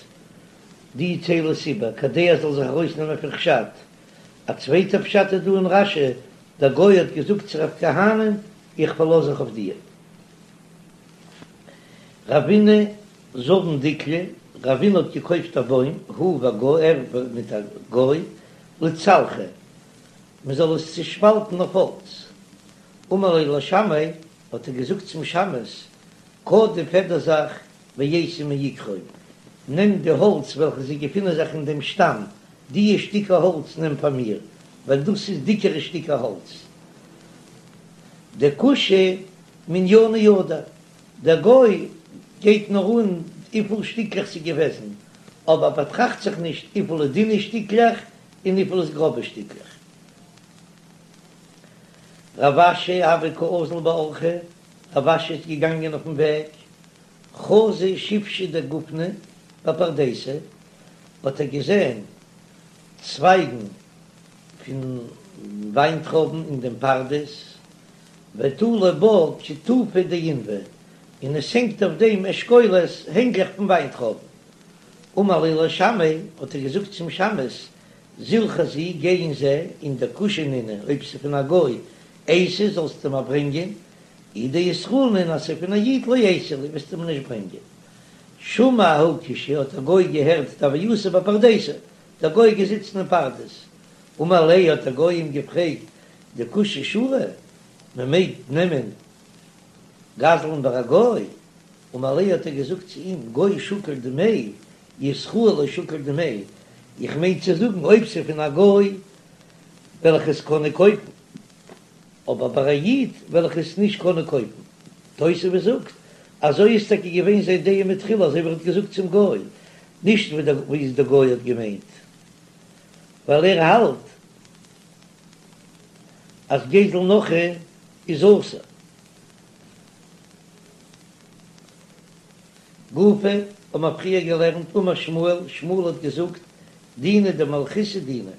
דו צייל עס איבער, כדי ער זאל זיך ארויסנעמען פון חשד. א צווייטער פשט איז דא אין רש"י, דער גוי האט געזאגט צו רב כהנא, איך פארלאז זיך אויף דיר. רבינא זבן דיקלא, רבינא האט געקויפט א בוים, הוא וגוי, ער מיט א גוי, לצלחא, מען זאל עס צושפאלטן אויף האלץ. אמר ליה לשמעיה, האט ער געזאגט צום שמש, קדים פעדער זיך ואייתי מעיקרו, נעם די האלץ וועלכע זיי געפינען זיך אין דעם שטאם, דיע שטיקער האלץ נעם פאר מיר, ווייל דאס איז דיקערע שטיקער האלץ. דכושי מנינא ידע, דער גוי גייט נאר אן וויפיל שטיקלעך ס'איז געוועזן, אבער באטראכט זיך נישט וויפיל איז דינע שטיקלעך און וויפיל איז גראבע שטיקלעך. רב אשי הוה קאזיל באורחא, רב אשי איז געגאנגען אויפן וועג, חזא שיפשא דגופנא בפרדיסא, האט ער געזען צווייגן פון וויינטרויבן אין דעם פרדס, ותלי בה כיתופי דעינבי, און עס הענגט אויף דעם אשכולות הענגלעך פון וויינטרויבן. אמר ליה לשמעיה, האט ער געזאגט צום שמש, זיל חזי, גיי און זע, און דכושי נינהו, אויב ס'איז פון א גוי, אייתי, זאלסטו מיר ברענגען, אי דישראל נינהו, אז ס'איז פון א איד, לא אייתי לי, וועסטו מיר נישט ברענגען. שמע ההוא כושי, האט דער גוי געהערט דהוה יתיב בפרדיסא, דער גוי איז געזיצן אין פרדס. אמר ליה, האט דער גוי אים געפרעגט, דכושי שרי, מען מעג נעמען גזל'ן ביי א גוי? אמר ליה האט ער געזאגט צו אים, גוי שקיל דמי, ישראל לא שקיל דמי, איך מיין צו זאגן אויב ס'איז פון א גוי וועל איך עס קענען קויפן, אבער ביי א איד וועל איך עס נישט קענען קויפן. תוספות זאגט, אזוי איז טאקע געווען זיין דעה מתחילה אזוי ווי ער האט געזאגט צום גוי, נישט ווי דער גוי האט געמיינט, ווייל ער האלט אז גזל נכרי איז אסור. גופא, האבן מיר פריער געלערנט, אמר שמואל, שמואל האט געזאגט, דינא דמלכותא דינא.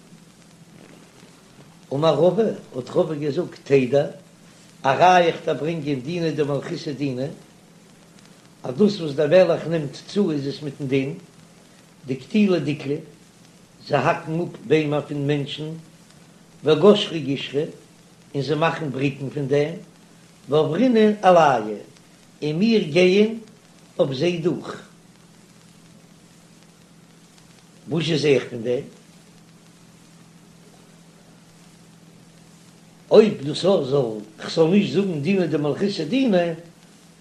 אמר רבא, האט רבא געזאגט, תדע, א ראיה איך דארף ברענגען דינא דמלכותא דינא, אז דאס וואס דער מלך נעמט צו איז עס מיטן דין, דקטילי דיקלי, זיי האקן אפ ביימער פון מענטשן, וגשרי גישרי, און זיי מאכן בריקן פון דעם, ועברינן עלייהו, און מיר גייען אויף זיי דורך. וואס זע איך פון דעם? אויב דאס זאל, כ'זאל נישט זאגן דינא דמלכותא דינא,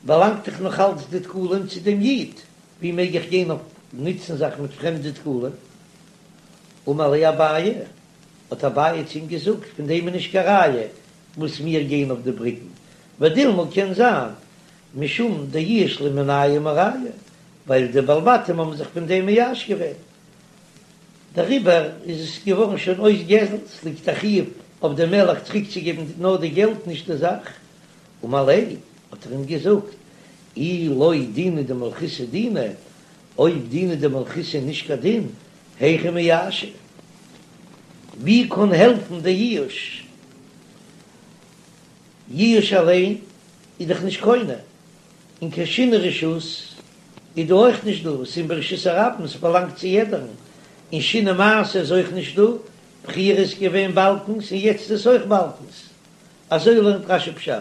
באלאנגט דאך נאך אלץ די דקלים צו דעם איד, ווי מעג איך גיין אויף נוצן זיך מיט פרעמדע דקלים? אמר ליה אביי, האט אביי צו אים געזאגט, פון דעם איז נישט קיין ראיה וואס מיר גייען אויף די בריקן, ודילמא קען זיין משום דייאוש להו מינייהו מרייהו, ווייל די בעלי בתים האבן זיך פון דעם מייאש געווען, דעריבער איז עס געווארן שוין אויס גזל, ס'ליגט א חיוב אויף דעם מלך צוריקצוגעבן נאר די געלט נישט די זאך. אמר ליה, האט ער אים געזאגט, אי לא דינא דמלכותא דינא, אויב דינא דמלכותא איז נישט קיין דין, היכי מייאשי? ווי קען העלפן די ייאוש? ייאוש אליין איז דאך נישט קונה, און קיין שינוי רשות איז דא אויך נישט דא, ס'איז ברשות הרבים, ס'באלאנגט צו יעדערן, און שינוי מעשה איז אויך נישט דא, פריער איז געווען באלקנס און יעצט איז אויך באלקנס, אזוי לערנט רש"י פשט.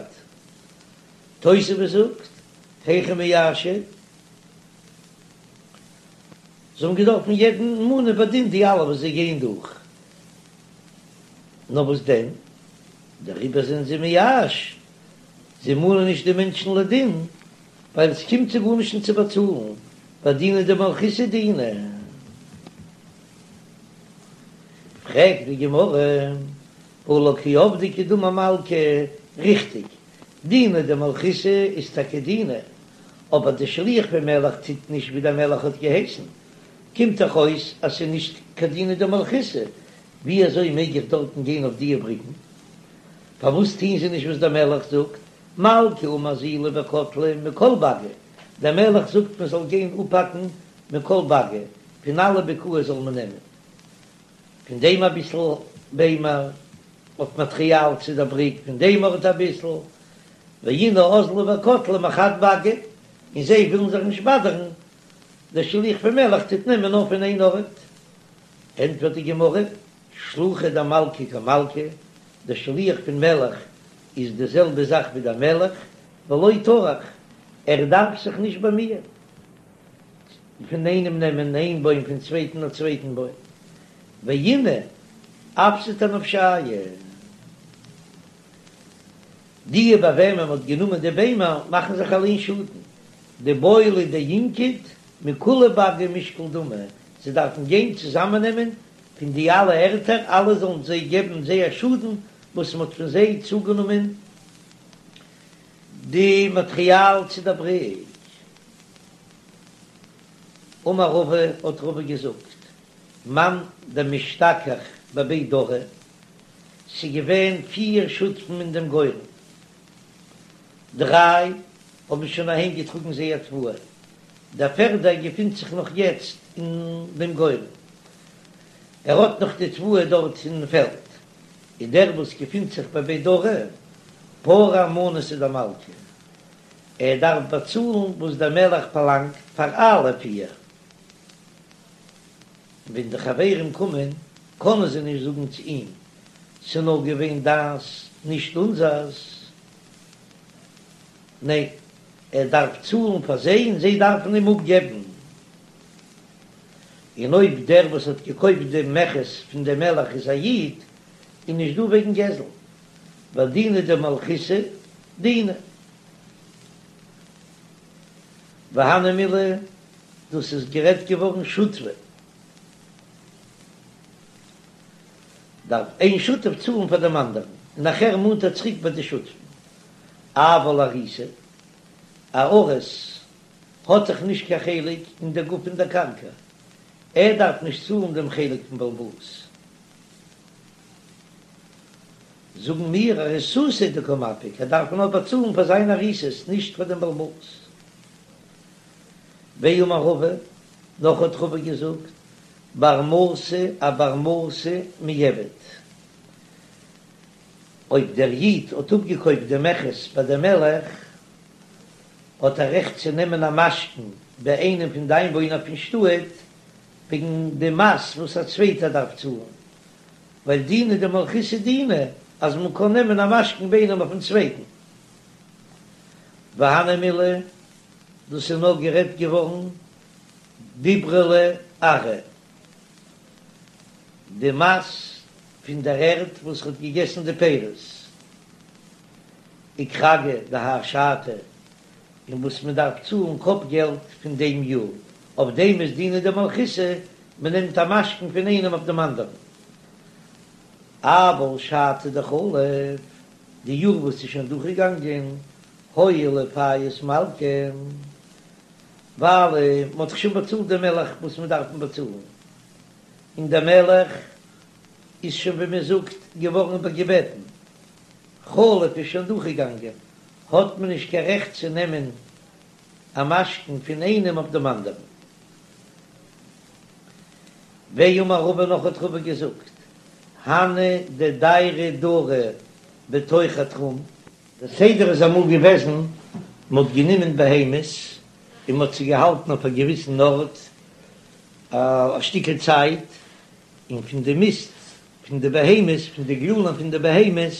תוספות זאגט, היכי מייאשי, זיי האבן געדארפן יעדן מאנען בדין די אלע וואס זיי גייען דורך, נאר וואס דען, דעריבער זענען זיי מייאש, זיי מאנען נישט די מענטשן לדין, ווייל עס קומט זיי גארנישט נישט צו באצאלן, ווייל דינא דמלכותא דינא. פרעגט די גמרא, והא לא קא עבדי כדאמר מלכא, ריכטיג, דינא דמלכותא איז טאקע דינא, אבער די שליח פון מלך טוט נישט ווי דער מלך האט געהייסן, קומט דאך אויס אז ס'איז נישט קיין דינא דמלכותא, ווי אזוי מעג איך דארטן גיין אויף דיע בריקן? פארוואס טוהן זיי נישט וואס דער מלך זאגט, מלכא אמר אזילו וקטלי מכל באגי, דער מלך זאגט מען זאל גיין אפהאקן מכל באגי, פון אלע בקעות זאל מען נעמען פון דעם אביסל ביימער אויף מאטריאל צו דער בריק, פון דעם ארט אביסל, ואינהו אזלי וקטלי מחד באגא, און זיי ווילן זיך נישט באדערן, דער שליח פון מלך טוט נעמען נאר פון איין ארט. ענטפערט די גמרא, שלוחא דמלכא כמלכא, דער שליח פון מלך איז די זעלבע זאך ווי דער מלך, ולא טרח, ער דארף זיך נישט באמיען פון איינעם נעמען איין בוים פון צווייטן א צווייטן בוים, ואינהו אפסיד אנפשייהו. די ביי וועמען מען האט גענומען די ביימער מאכן זיך אליין שאדן, דבעי לינקוט מכולהו באגי משקל דמי, זיי דארפן גיין צוזאמעננעמען פון די אלע ערטער אלע זאלן זיי געבן זייער שאדן וואס מען האט פון זיי צוגענומען די מאטריאל צו דער בריק. אמר רבא, האט רבא געזאגט, מאן דמשתכח בבי דרי, ס'געווען פיר שותפים אין דעם גורן, דריי האבן שוין אהיים געטראגן זייער תבואה, דער פערדער געפינט זיך נאך יעצט אין דעם גורן, ער האט נאך די תבואה דארט אין פעלד, און דער וואס געפינט זיך בבי דרי, פרע מנתא דמלכא, ער דארף באצאלן וואס דער מלך פארלאנגט פאר אלע פיר. ווען די חברים קומען קענען זיי נישט זאגן צו אים, ס'איז נאר געווען דיינס נישט אונזערס. ניין, ער דארף צאלן פאר זיי און זיי דארפן אים אפגעבן. און אויב דער וואס האט געקויפט דעם מכס פון דעם מלך איז א איד, איז נישט דא וועגן גזל, ווייל דינא דמלכותא דינא. והני מילי, דאס איז גערעדט געווארן שותפי, דארף איין שותף צאלן פאר דעם אנדערן, און נאכער מאנט ער צוריק ביי די שותפים. אבל אריסא, א אריס האט דאך נישט קיין חלק אין דער גוף פון דער קרקע, ער דארף נישט צאלן דעם חלק פון בעל הבית. זאגן מיר אריסותיה הוא דקא מפיק, ער דארף נאר באצאלן פאר זיין אריסות, נישט פאר דעם בעל הבית. ואמר רבא, נאך האט רבא געזאגט, בר מתא אבר מתא מיעבד, אויב דער איד האט אפגעקויפט די מכס ביי דעם מלך, האט ער רעכט צו נעמען א משכון ביי איינעם פון די איינוואוינער פון שטאט, וועגן די מס וואס א צווייטער דארף צאלן, ווייל דינא דמלכותא דינא אז מען קען נעמען א משכון ביי איינעם אויפן צווייטן. והני מילי, דאס איז נאר גערעדט געווארן דיברלא ארעא, די מס פון דער ערד וואס האט געגעסן די פירות, וכרגא דהאי שתא, און וואס מען דארף צאלן קאפ געלט פון דעם יאר, אויף דעם איז דינא דמלכותא, מען נעמט א משכון פון איינעם אויף דעם אנדערן. אבל שתא דחליף, די יאר וואס איז שוין דורכגעגאנגען, הואיל ופייס מלכא, ווייל מען האט דאך שוין באצאלט דעם מלך וואס מען דארף אים באצאלן, און דער מלך איז שוין ווי מען זאגט געווארן איבערגעבעטן, חלף איז שוין דורכגעגאנגען, האט מען נישט קיין רעכט צו נעמען א משכון פון איינעם אויף דעם אנדערן. ואמר רבא נאך האט רבא געזאגט, הני דדיירי דרי בתוך התחום, דער סדר איז אמאל געוועזן, מען האט גענומען בהמות און מען האט זיי געהאלטן אויף א געוויסן ארט א שטיקל צייט, און פון די מיסט פון די בהמות, פון די גללים פון די בהמות,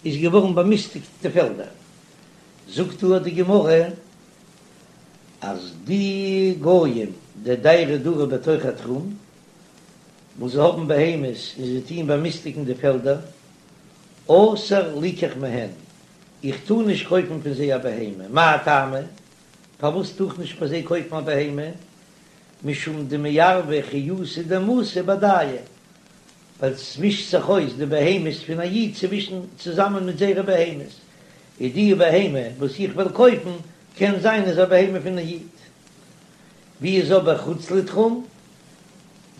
איז געווארן באמיסטיגט די פעלדער. זאגט דא די גמרא אז די גויים דדיירי דרי בתוך התחום, וואס זיי האבן בהמות און זיי טוען באמיסטיגן די פעלדער, אסור ליקח מהן, איך טאר נישט קויפן פון זיי א בהמה, מאי טעמא? פארוואס טאר איך נישט ביי זיי קויפן א בהמה? משום דמערבי חיותא דמתא בהדייהו. ווייל ס'מישט זיך אויס די בהמות פון א איד צווישן צוזאמען מיט זייערע בהמות, איז די בהמה וואס איך וועל קויפן קען זיין איז א בהמה פון א איד. ווי איז אבער חוץ לתחום?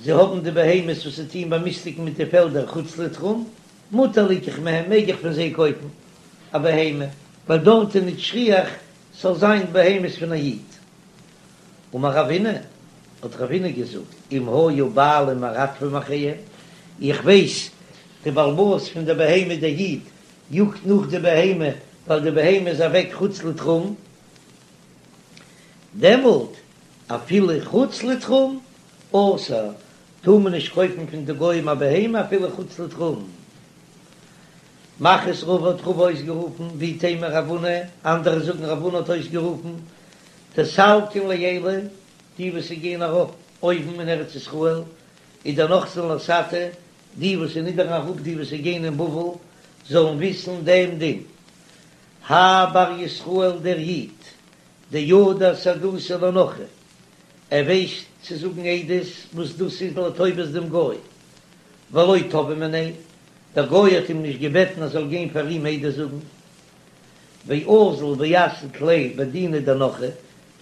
זיי האבן די בהמות וואס זיי טוען באמיסטיגן מיט די פעלדער חוץ לתחום, מותר ליקח מהם, מעג איך פון זיי קויפן א בהמה, ווייל דארט איז נישט שכיח ס'זאל זיין בהמות פון א איד. אמר רבינא, האט רבינא געזאגט, אם היו בעלים מרדפים אחריהם, איך ווייס די בעל הבית פון די בהמה דער איד יאגט נאך די בהמה ווייל די בהמה איז אוועק חוץ לתחום, דעמאלט אפילו חוץ לתחום אסור, טאר מען נישט קויפן פון די גוים א בהמה אפילו חוץ לתחום. מכריז רבא האט רבא אויסגערופן, ואיתימא רב הונא, אנדערע זאגן רב הונא האט אויסגערופן, דסלקין לעילא, די וואס גייען ארויף אויבן אין ארץ ישראל, ודנחתין לתתא, די וואס נידערן אראפ די וואס גייען אין בבל, זאלן וויסן דעם דין. האי בר ישראל דער איד, דידע סהדותא לנכרי, ער ווייסט צו זאגן עדות וואס דאס איז לטובת דעם גוי, ולא תבעי מיניה, דער גוי האט אים נישט געבעטן ער זאל גיין פאר אים עדות זאגן, ואזיל ואסהיד ליה בדינא דנכרי,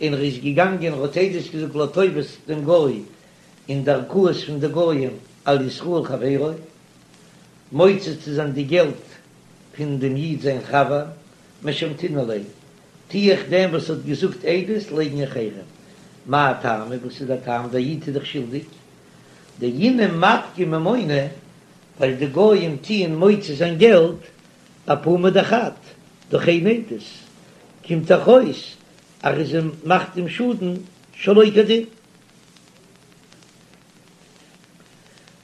און ער איז געגאנגען ער האט עדות געזאגט לטובת דעם גוי אין די ערכאות פון די גויים על ישראל חברו, מוציא צו זיין די געלט פון דעם איד זיין חבר, משמתינן ליה, טו איך דעם וואס האט געזאגט עדות לייגן אין חרם. מאי טעמא, וואס איז דער טעם, דער איד איז דאך שולדיג, דאינהו מפקי ממונא, ווייל די גויים טוען מוציא זיין געלט אפומא דחד, דורך איין עדות, קומט דאך אויס אז ער מאכט אים שאדן שלא כדין.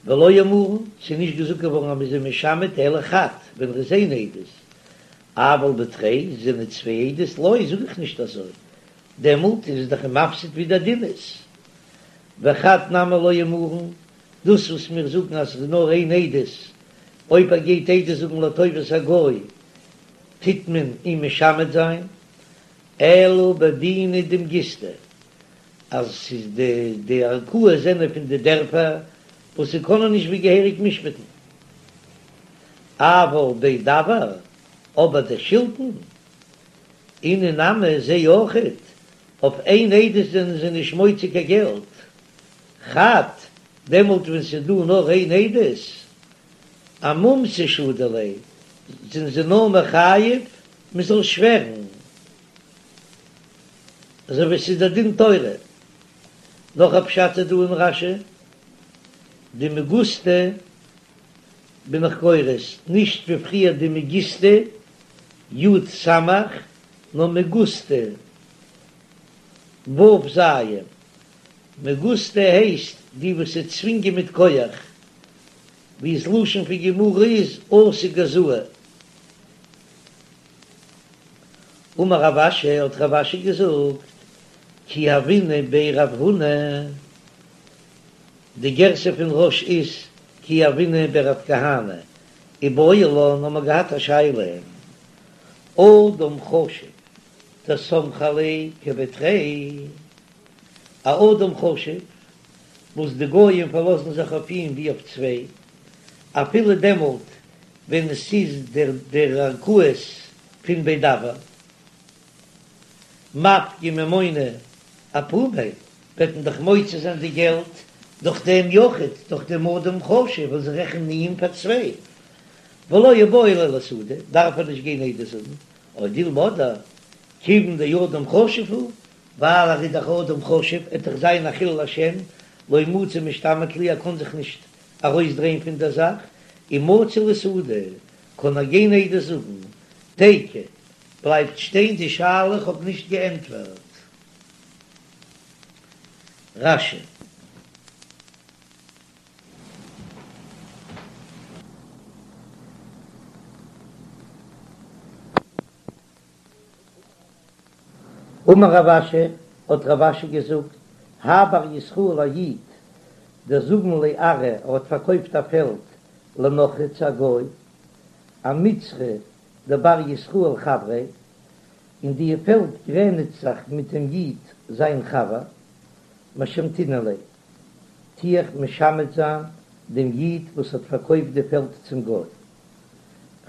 ולא אמרן, ס'איז נישט געזאגט געווארן אז מ'איז אים משמת אלא חד, ווען ר'איז איין עדות, אבל בתרי, זענען צוויי עדות, לא, זאג איך נישט אזוי, דעמאלט איז עס דאך אים מפסיד ווי דער דין איז. וחד נמי לא אמרן, דאס וואס מיר זאגן אז ס'איז נאר איין עדות, אויב ער גייט עדות זאגן לטובת הגוי טוט מען אים משמת זיין, אלא בדינא דמגיסתא, אז ס'איז די די ערכאות זענען פון די דערפער וואס זיי קענען נישט ווי געהעריג משפט'ן. אבל בי דוואר, אבער די שלטון, אינהו נמי זיי אויכעט, אויף איין עדות זענען זיי נישט מוציא קיין געלט. חד, דעמאלט ווען ס'איז דא נאר איין עדות, אמומתא שדו ליה, זענען זיי נאר מחייב מ'זאל שווערן. אזוי ווי ס'איז דער דין תורה. נאך א פשט איז דא אין רש"י, דמגוסתא בין איך גורס, נישט ווי פריער דמגיסתא, י' סמך, נאר מגוסתא, ו' ז'. מגוסתא הייסט די וואס זיי צווינגען מיט כח, ווי ס'לשון פון גמרא איז אתו גזאי. אמר רב אשי, האט רב אשי געזאגט, כי הוינא בי רב הונא, די גירסא פון רא"ש איז כי הוינא בי רב כהנא, איבעיא לן האבן מיר געהאט א שאלה, אדם חשוב דסמכי עליה כבי תרי, א אדם חשוב וואס די גויים פארלאזן זיך אויף אים ווי אויף צוויי, אפילו דעמאלט ווען עס איז דער דער ערכאות פון בי דוואר מפקי ממונא אפומיה, וועט מען דאך מוציא זיין די געלט דורך דעם יחיד, דורך דעם אדם חשוב וואס זיי רעכענען איהם פאר צוויי, ולא איבעי ליה לאסהודי, דארף ער נישט גיין עדות זאגן, או דילמא אדער כיוון דאדם חשוב הוא, ווייל ער איז דאך אדם חשוב, עט דאך זיין א חילול השם, לא מצי משתמיט להו, ער קען זיך נישט ארויסדרייען פון דער זאך, ומצי לאסהודי, קען ער גיין עדות זאגן, תיקו, בלייבט שטיין די שאלה איך האב נישט געענטפערט. רש"י. אמר רב אשי, האט רב אשי געזאגט, האי בר ישראל א איד, דזבין ליה ארעא, ער האט פארקויפט א פעלד לנכרי צו א גוי, אמצרא דבר ישראל חבריה, און די פעלד גרעניצט זיך מיט דעם איד זיין חבר, משמתינן ליה, טו איך משמת זיין. דעם איד וואס האט פארקויפט די פעלד צום גוי.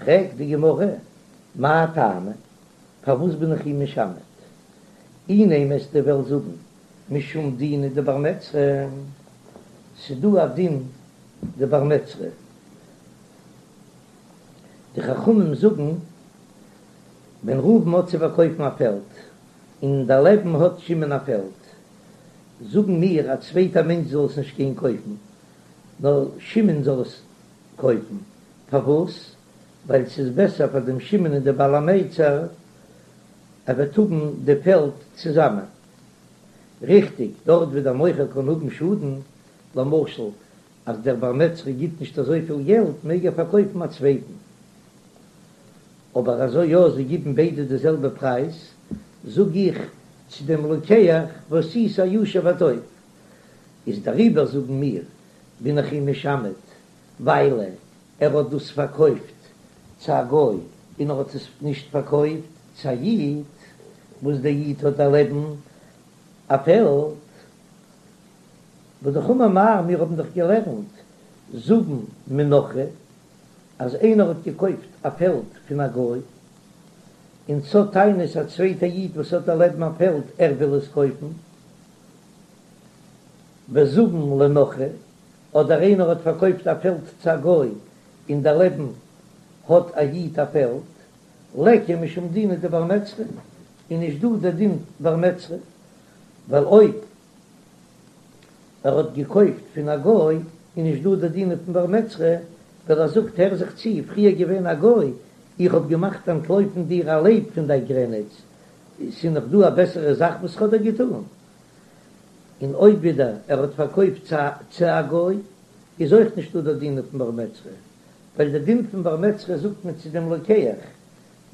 פרעגט די גמרא, מאי טעמא, פארוואס בין איך אים משמת? אי נימא אז דו וועסט זאגן משום דינא דבר מצרא, ס'דא א דין דבר מצרא, די חכמים זאגן ווען ראובן האט צו פארקויפן א פעלד און דערלעבן האט שמעון א פעלד, זאגן מיר א צווייטע מענטש זאל עס נישט גיין קויפן, נאר שמעון זאל עס קויפן, פארוואס? ווייל ס'איז בעסער פאר דעם שמעון און די בעל המצר, ער וועט האבן די פעלד צוזאמען. ריכטיג, דארט ווי דער מוכר קען האבן שאדן, למשל אז דער בר מצרא גיט נישט אזויפיל געלט מעג ער פארקויפן א צווייטן, אבער אזוי יא זיי גיבן ביידע די זעלבע פרייז, זאג איך צו דעם לוקח ועשית הישר והטוב, איז דעריבער זאגן מיר בין איך אים משמת ווייל ער האט דאס פארקויפט צו א גוי און ער האט עס נישט פארקויפט צו א איד, וואס דער איד האט דערלעבן א פעלד. והא דאך אמר מר, מיר האבן דאך געלערנט זבין מנכרי, אז איינער האט געקויפט א פעלד פון א גוי, און ס'האט טענות א צווייטע איד וואס האט דערלעבן א פעלד ער וויל עס קויפן, וזבין לנכרי, אדער איינער האט פארקויפט א פעלד צו א גוי און דערלעבן האט א איד א פעלד, ליכא משום דינא דבר מצרא, איז נישט דא דער דין בר מצרא, ווייל אויב ער האט געקויפט פון א גוי איז נישט דא די דין פון בר מצרא, ווייל ער זאגט הער זיך צו, פריער געווען א גוי, איך האב געמאכט אנטלויפן דיר א לייב פון דיין גרעניץ, ס'איז נאך דא א בעסערע זאך וואס כ'האב דיר געטון? און אויב ווידער ער האט פארקויפט צו א גוי, איז אויך נישטא די דין פון בר מצרא, ווייל די דין פון בר מצרא זאגט מען צו דעם לוקח,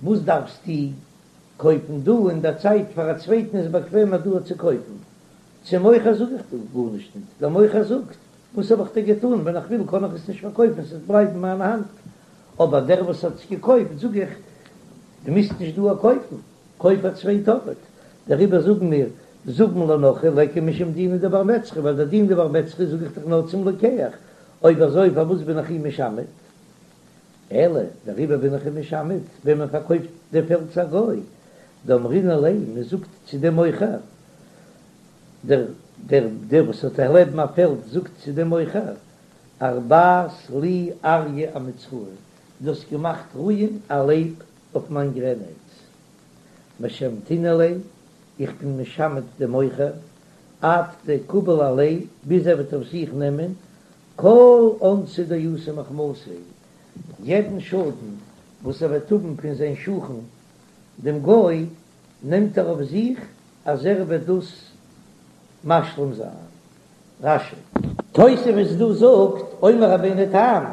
וואס דארפסטו קויפן דא אין דער צייט פאר א צווייטן איז באקוועמער דא צו קויפן, צום מוכר זאג איך דא גארנישט ניט, דער מוכר זאגט, וואס האב איך דיר געטאן, ווען איך וויל קען איך עס נישט פארקויפן, עס וועט בלייבן אין מיין האנט, אבער דער וואס האט עס געקויפט זאג איך, דו מוזט נישט דא קויפן, קויף א צווייט ארט, דעריבער זאגן מיר, זבין לנכרי ליכא משום דינא דבר מצרא, ווייל דער דין דבר מצרא זאג איך דאך נאר צום לוקח, אויב אזוי פארוואס בין איך אים משמת? אלא דעריבער בין איך אים משמת, ווען מען פארקויפט די פעלד צו א גוי, דאמרינן ליה, מען זאגט צו דעם מוכר, דער דער דער וואס האט דערלעבן א פעלד זאגט צו דעם מוכר, ארבעת לי אריא אמצראי, דו האסט געמאכט רוען א לייב אויף מיין גרעניץ, משמתינן ליה, איך בין משמת דעם מוכר, עד דקביל עליה, ביז ער וועט אויף זיך נעמען כל אונסא דאתי מחמתיה, יעדן שאדן וואס ער וועט האבן פון זיין שכן דעם גוי, נעמט ער אויף זיך אז ער וועט דאס משלים זיין. רש"י. תוספות דא זאגט, אומר רבינו תם,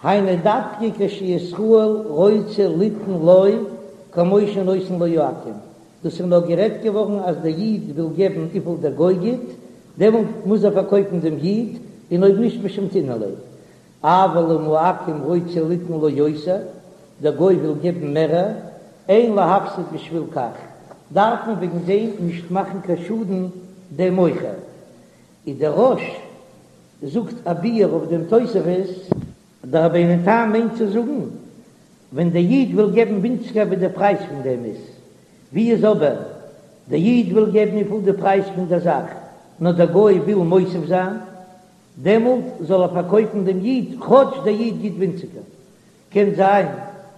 היינו דווקא כשישראל רוצה ליתן לו כמו שנותן לו העכו"ם, דאס איז נאר גערעדט געווארן אז דער איד וויל געבן וויפיל דער גוי גיט, דעמאלט מוז ער פארקויפן דעם איד, און אויב נישט משמתינן ליה. אבל אם העכו"ם רוצה ליתן לו יותר, דער גוי וויל געבן מערער, אין להפסיד בשביל כך, דארף מען וועגן דעם נישט מאכן קיין שאדן דעם מוכר. איז דער רא"ש זאגט א ביאור אויף דעם תוספות. דער רבינו תם מיינט צו זאגן, ווען דער איד וויל געבן ווינציגער ווי דער פרייז פון דעם איז, ווי איז אבער דער איד וויל געבן וויפיל די פרייז פון דער זאך, נאר דער גוי וויל מוסיף זיין, דעמאלט זאל ער פארקויפן דעם איד כאטש דער איד גיט ווינציגער. קען זיין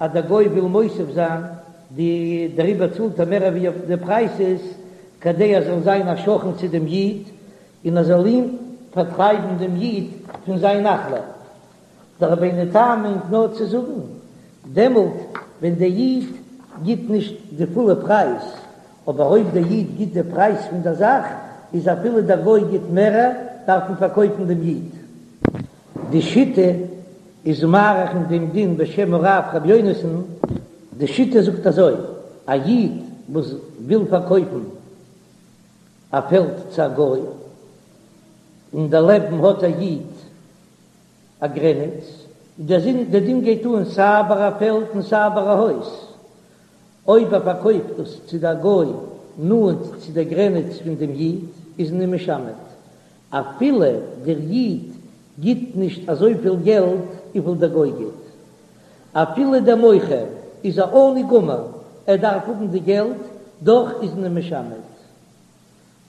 אז דער גוי וויל מוסיף זיין, די דעריבער צאלט ער מער ווי אויף די פרייז איז, כדי ער זאל זיין א שכן צו דעם איד, און ער זאל אים פארטרייבן דעם איד פון זיין נחלה. דער רבינו תם מיינט נאר צו זאגן, דעמאלט ווען דער איד גיט נישט די פולע פרייז, אבער אויב דער איד גיט די פרייז פון דער זאך, איז אפילו דער גוי גיט מערער, דארף מען פארקויפן דעם איד. די שיטה איז מאריך אין דעם דין בשם הרב ר' יונתן, די שיטה זאגט אזוי, א איד וואס וויל פארקויפן א פעלד צו א גוי, און דערלעבן האט א איד א גרעניץ, דער דין גייט אן סיי ביי א פעלד און סיי ביי א הויז, אויב ער פארקויפט דאס צו דער גוי נאנט צו דער גרעניץ פון דעם איד, איז מען אים משמת, אפילו דער איד גיט. גיט נישט אזויפיל געלט וויפיל דער גוי גיט. אפילו דער מוכר איז א עני גמור, ער דארף האבן די געלט, דאך איז מען משמט.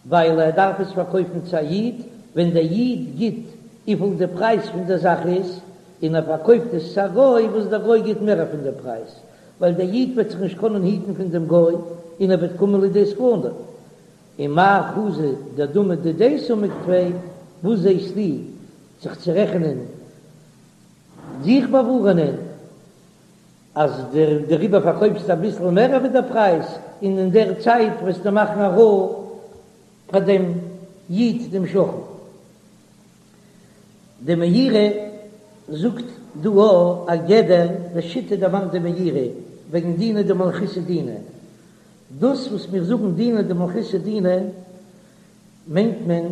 ווייל ער דארף עס פארקויפן צו א איד, ווען דער איד גיט וויפיל די פרייז פון דער זאך איז, און ער פארקויפט עס צו א גוי וואס דער גוי גיט מער פון דער פרייז, ווייל דער איד וועט זיך נישט קענען היטן פון דעם גוי, און ער וועט קומען לידי סכנה. ומאי חזית דדמי דידיה סומק טפי, וואס זעסטו זיך צו רעכענען, זיך באווארענען, אז דעריבער פארקויפסטו אביסל מער ווי דער פרייז, און אין דער צייט וועסטו מאכן א רעה פאר דעם איד דעם שכן. די מאירי זאגט דא א גדר די שיטה דערמאנט די מאירי וועגן דינא דמלכותא דינא. דאס וואס מיר זאגן דינא דמלכותא דינא מיינט מען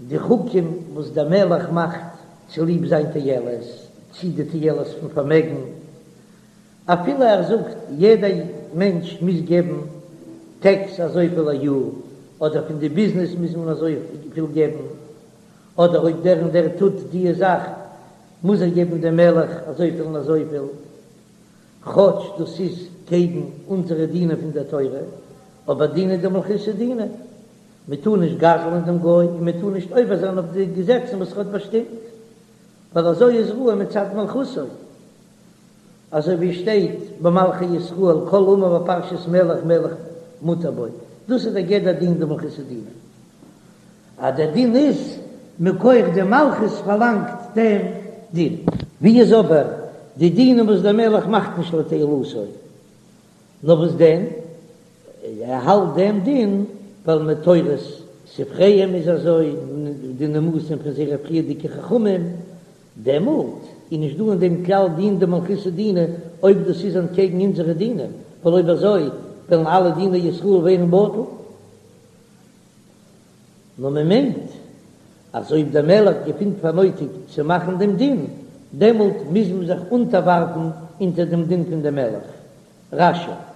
די חוקים וואס דער מלך מאכט צוליב זיין תועלת, צי די תועלת פון פארמעגן, אפילו ער זאגט יעדע מענטש מוז געבן טעקס אזויפיל א יאר, אדער פון די ביזנעס מוז מען אזויפיל געבן, אדער אויב דער און דער טוט די זאך מוז ער געבן דעם מלך אזויפיל און אזויפיל, כאטש דאס איז קעגן אונזערע דינים פון דער תורה, אבער דינא דמלכותא דינא. מען טאר נישט גזל'ן דעם גוי און מען טאר נישט עובר זיין אויף די געזעצן וואס ער האט באשטימט, ווייל אזוי איז ראוי מצד מלכותו, אזוי ווי עס שטייט במלכי ישראל כל האמור בפרשת מלך מלך מותר בו, דאס איז דער גדר דין דמלכותא דינא, אז דער דין איז מכח די מלכות פארלאנגט דעם דין. ווי איז אבער די דינים וואס דער מלך מאכט נישט לתועלתו, נאר וואס דען? ער האלט דעם דין ווייל מתורת ספריהם איז אזוי, די נימוסים פון זייערע פריערדיגע חכמים, דעמאלט איז נישט דא אין דעם כלל דין דמלכותא דינא אויב דאס איז אנטקעגן אונזערע דינים, ווייל אויב אזוי וועלן אלע דיני ישראל ווערן בטל. נאר מען מיינט אז אויב דער מלך געפינט פאר נויטיג צו מאכן דעם דין, דעמאלט מוז מען זיך אונטערווארפן אונטער דעם דין פון דעם מלך. רש"י.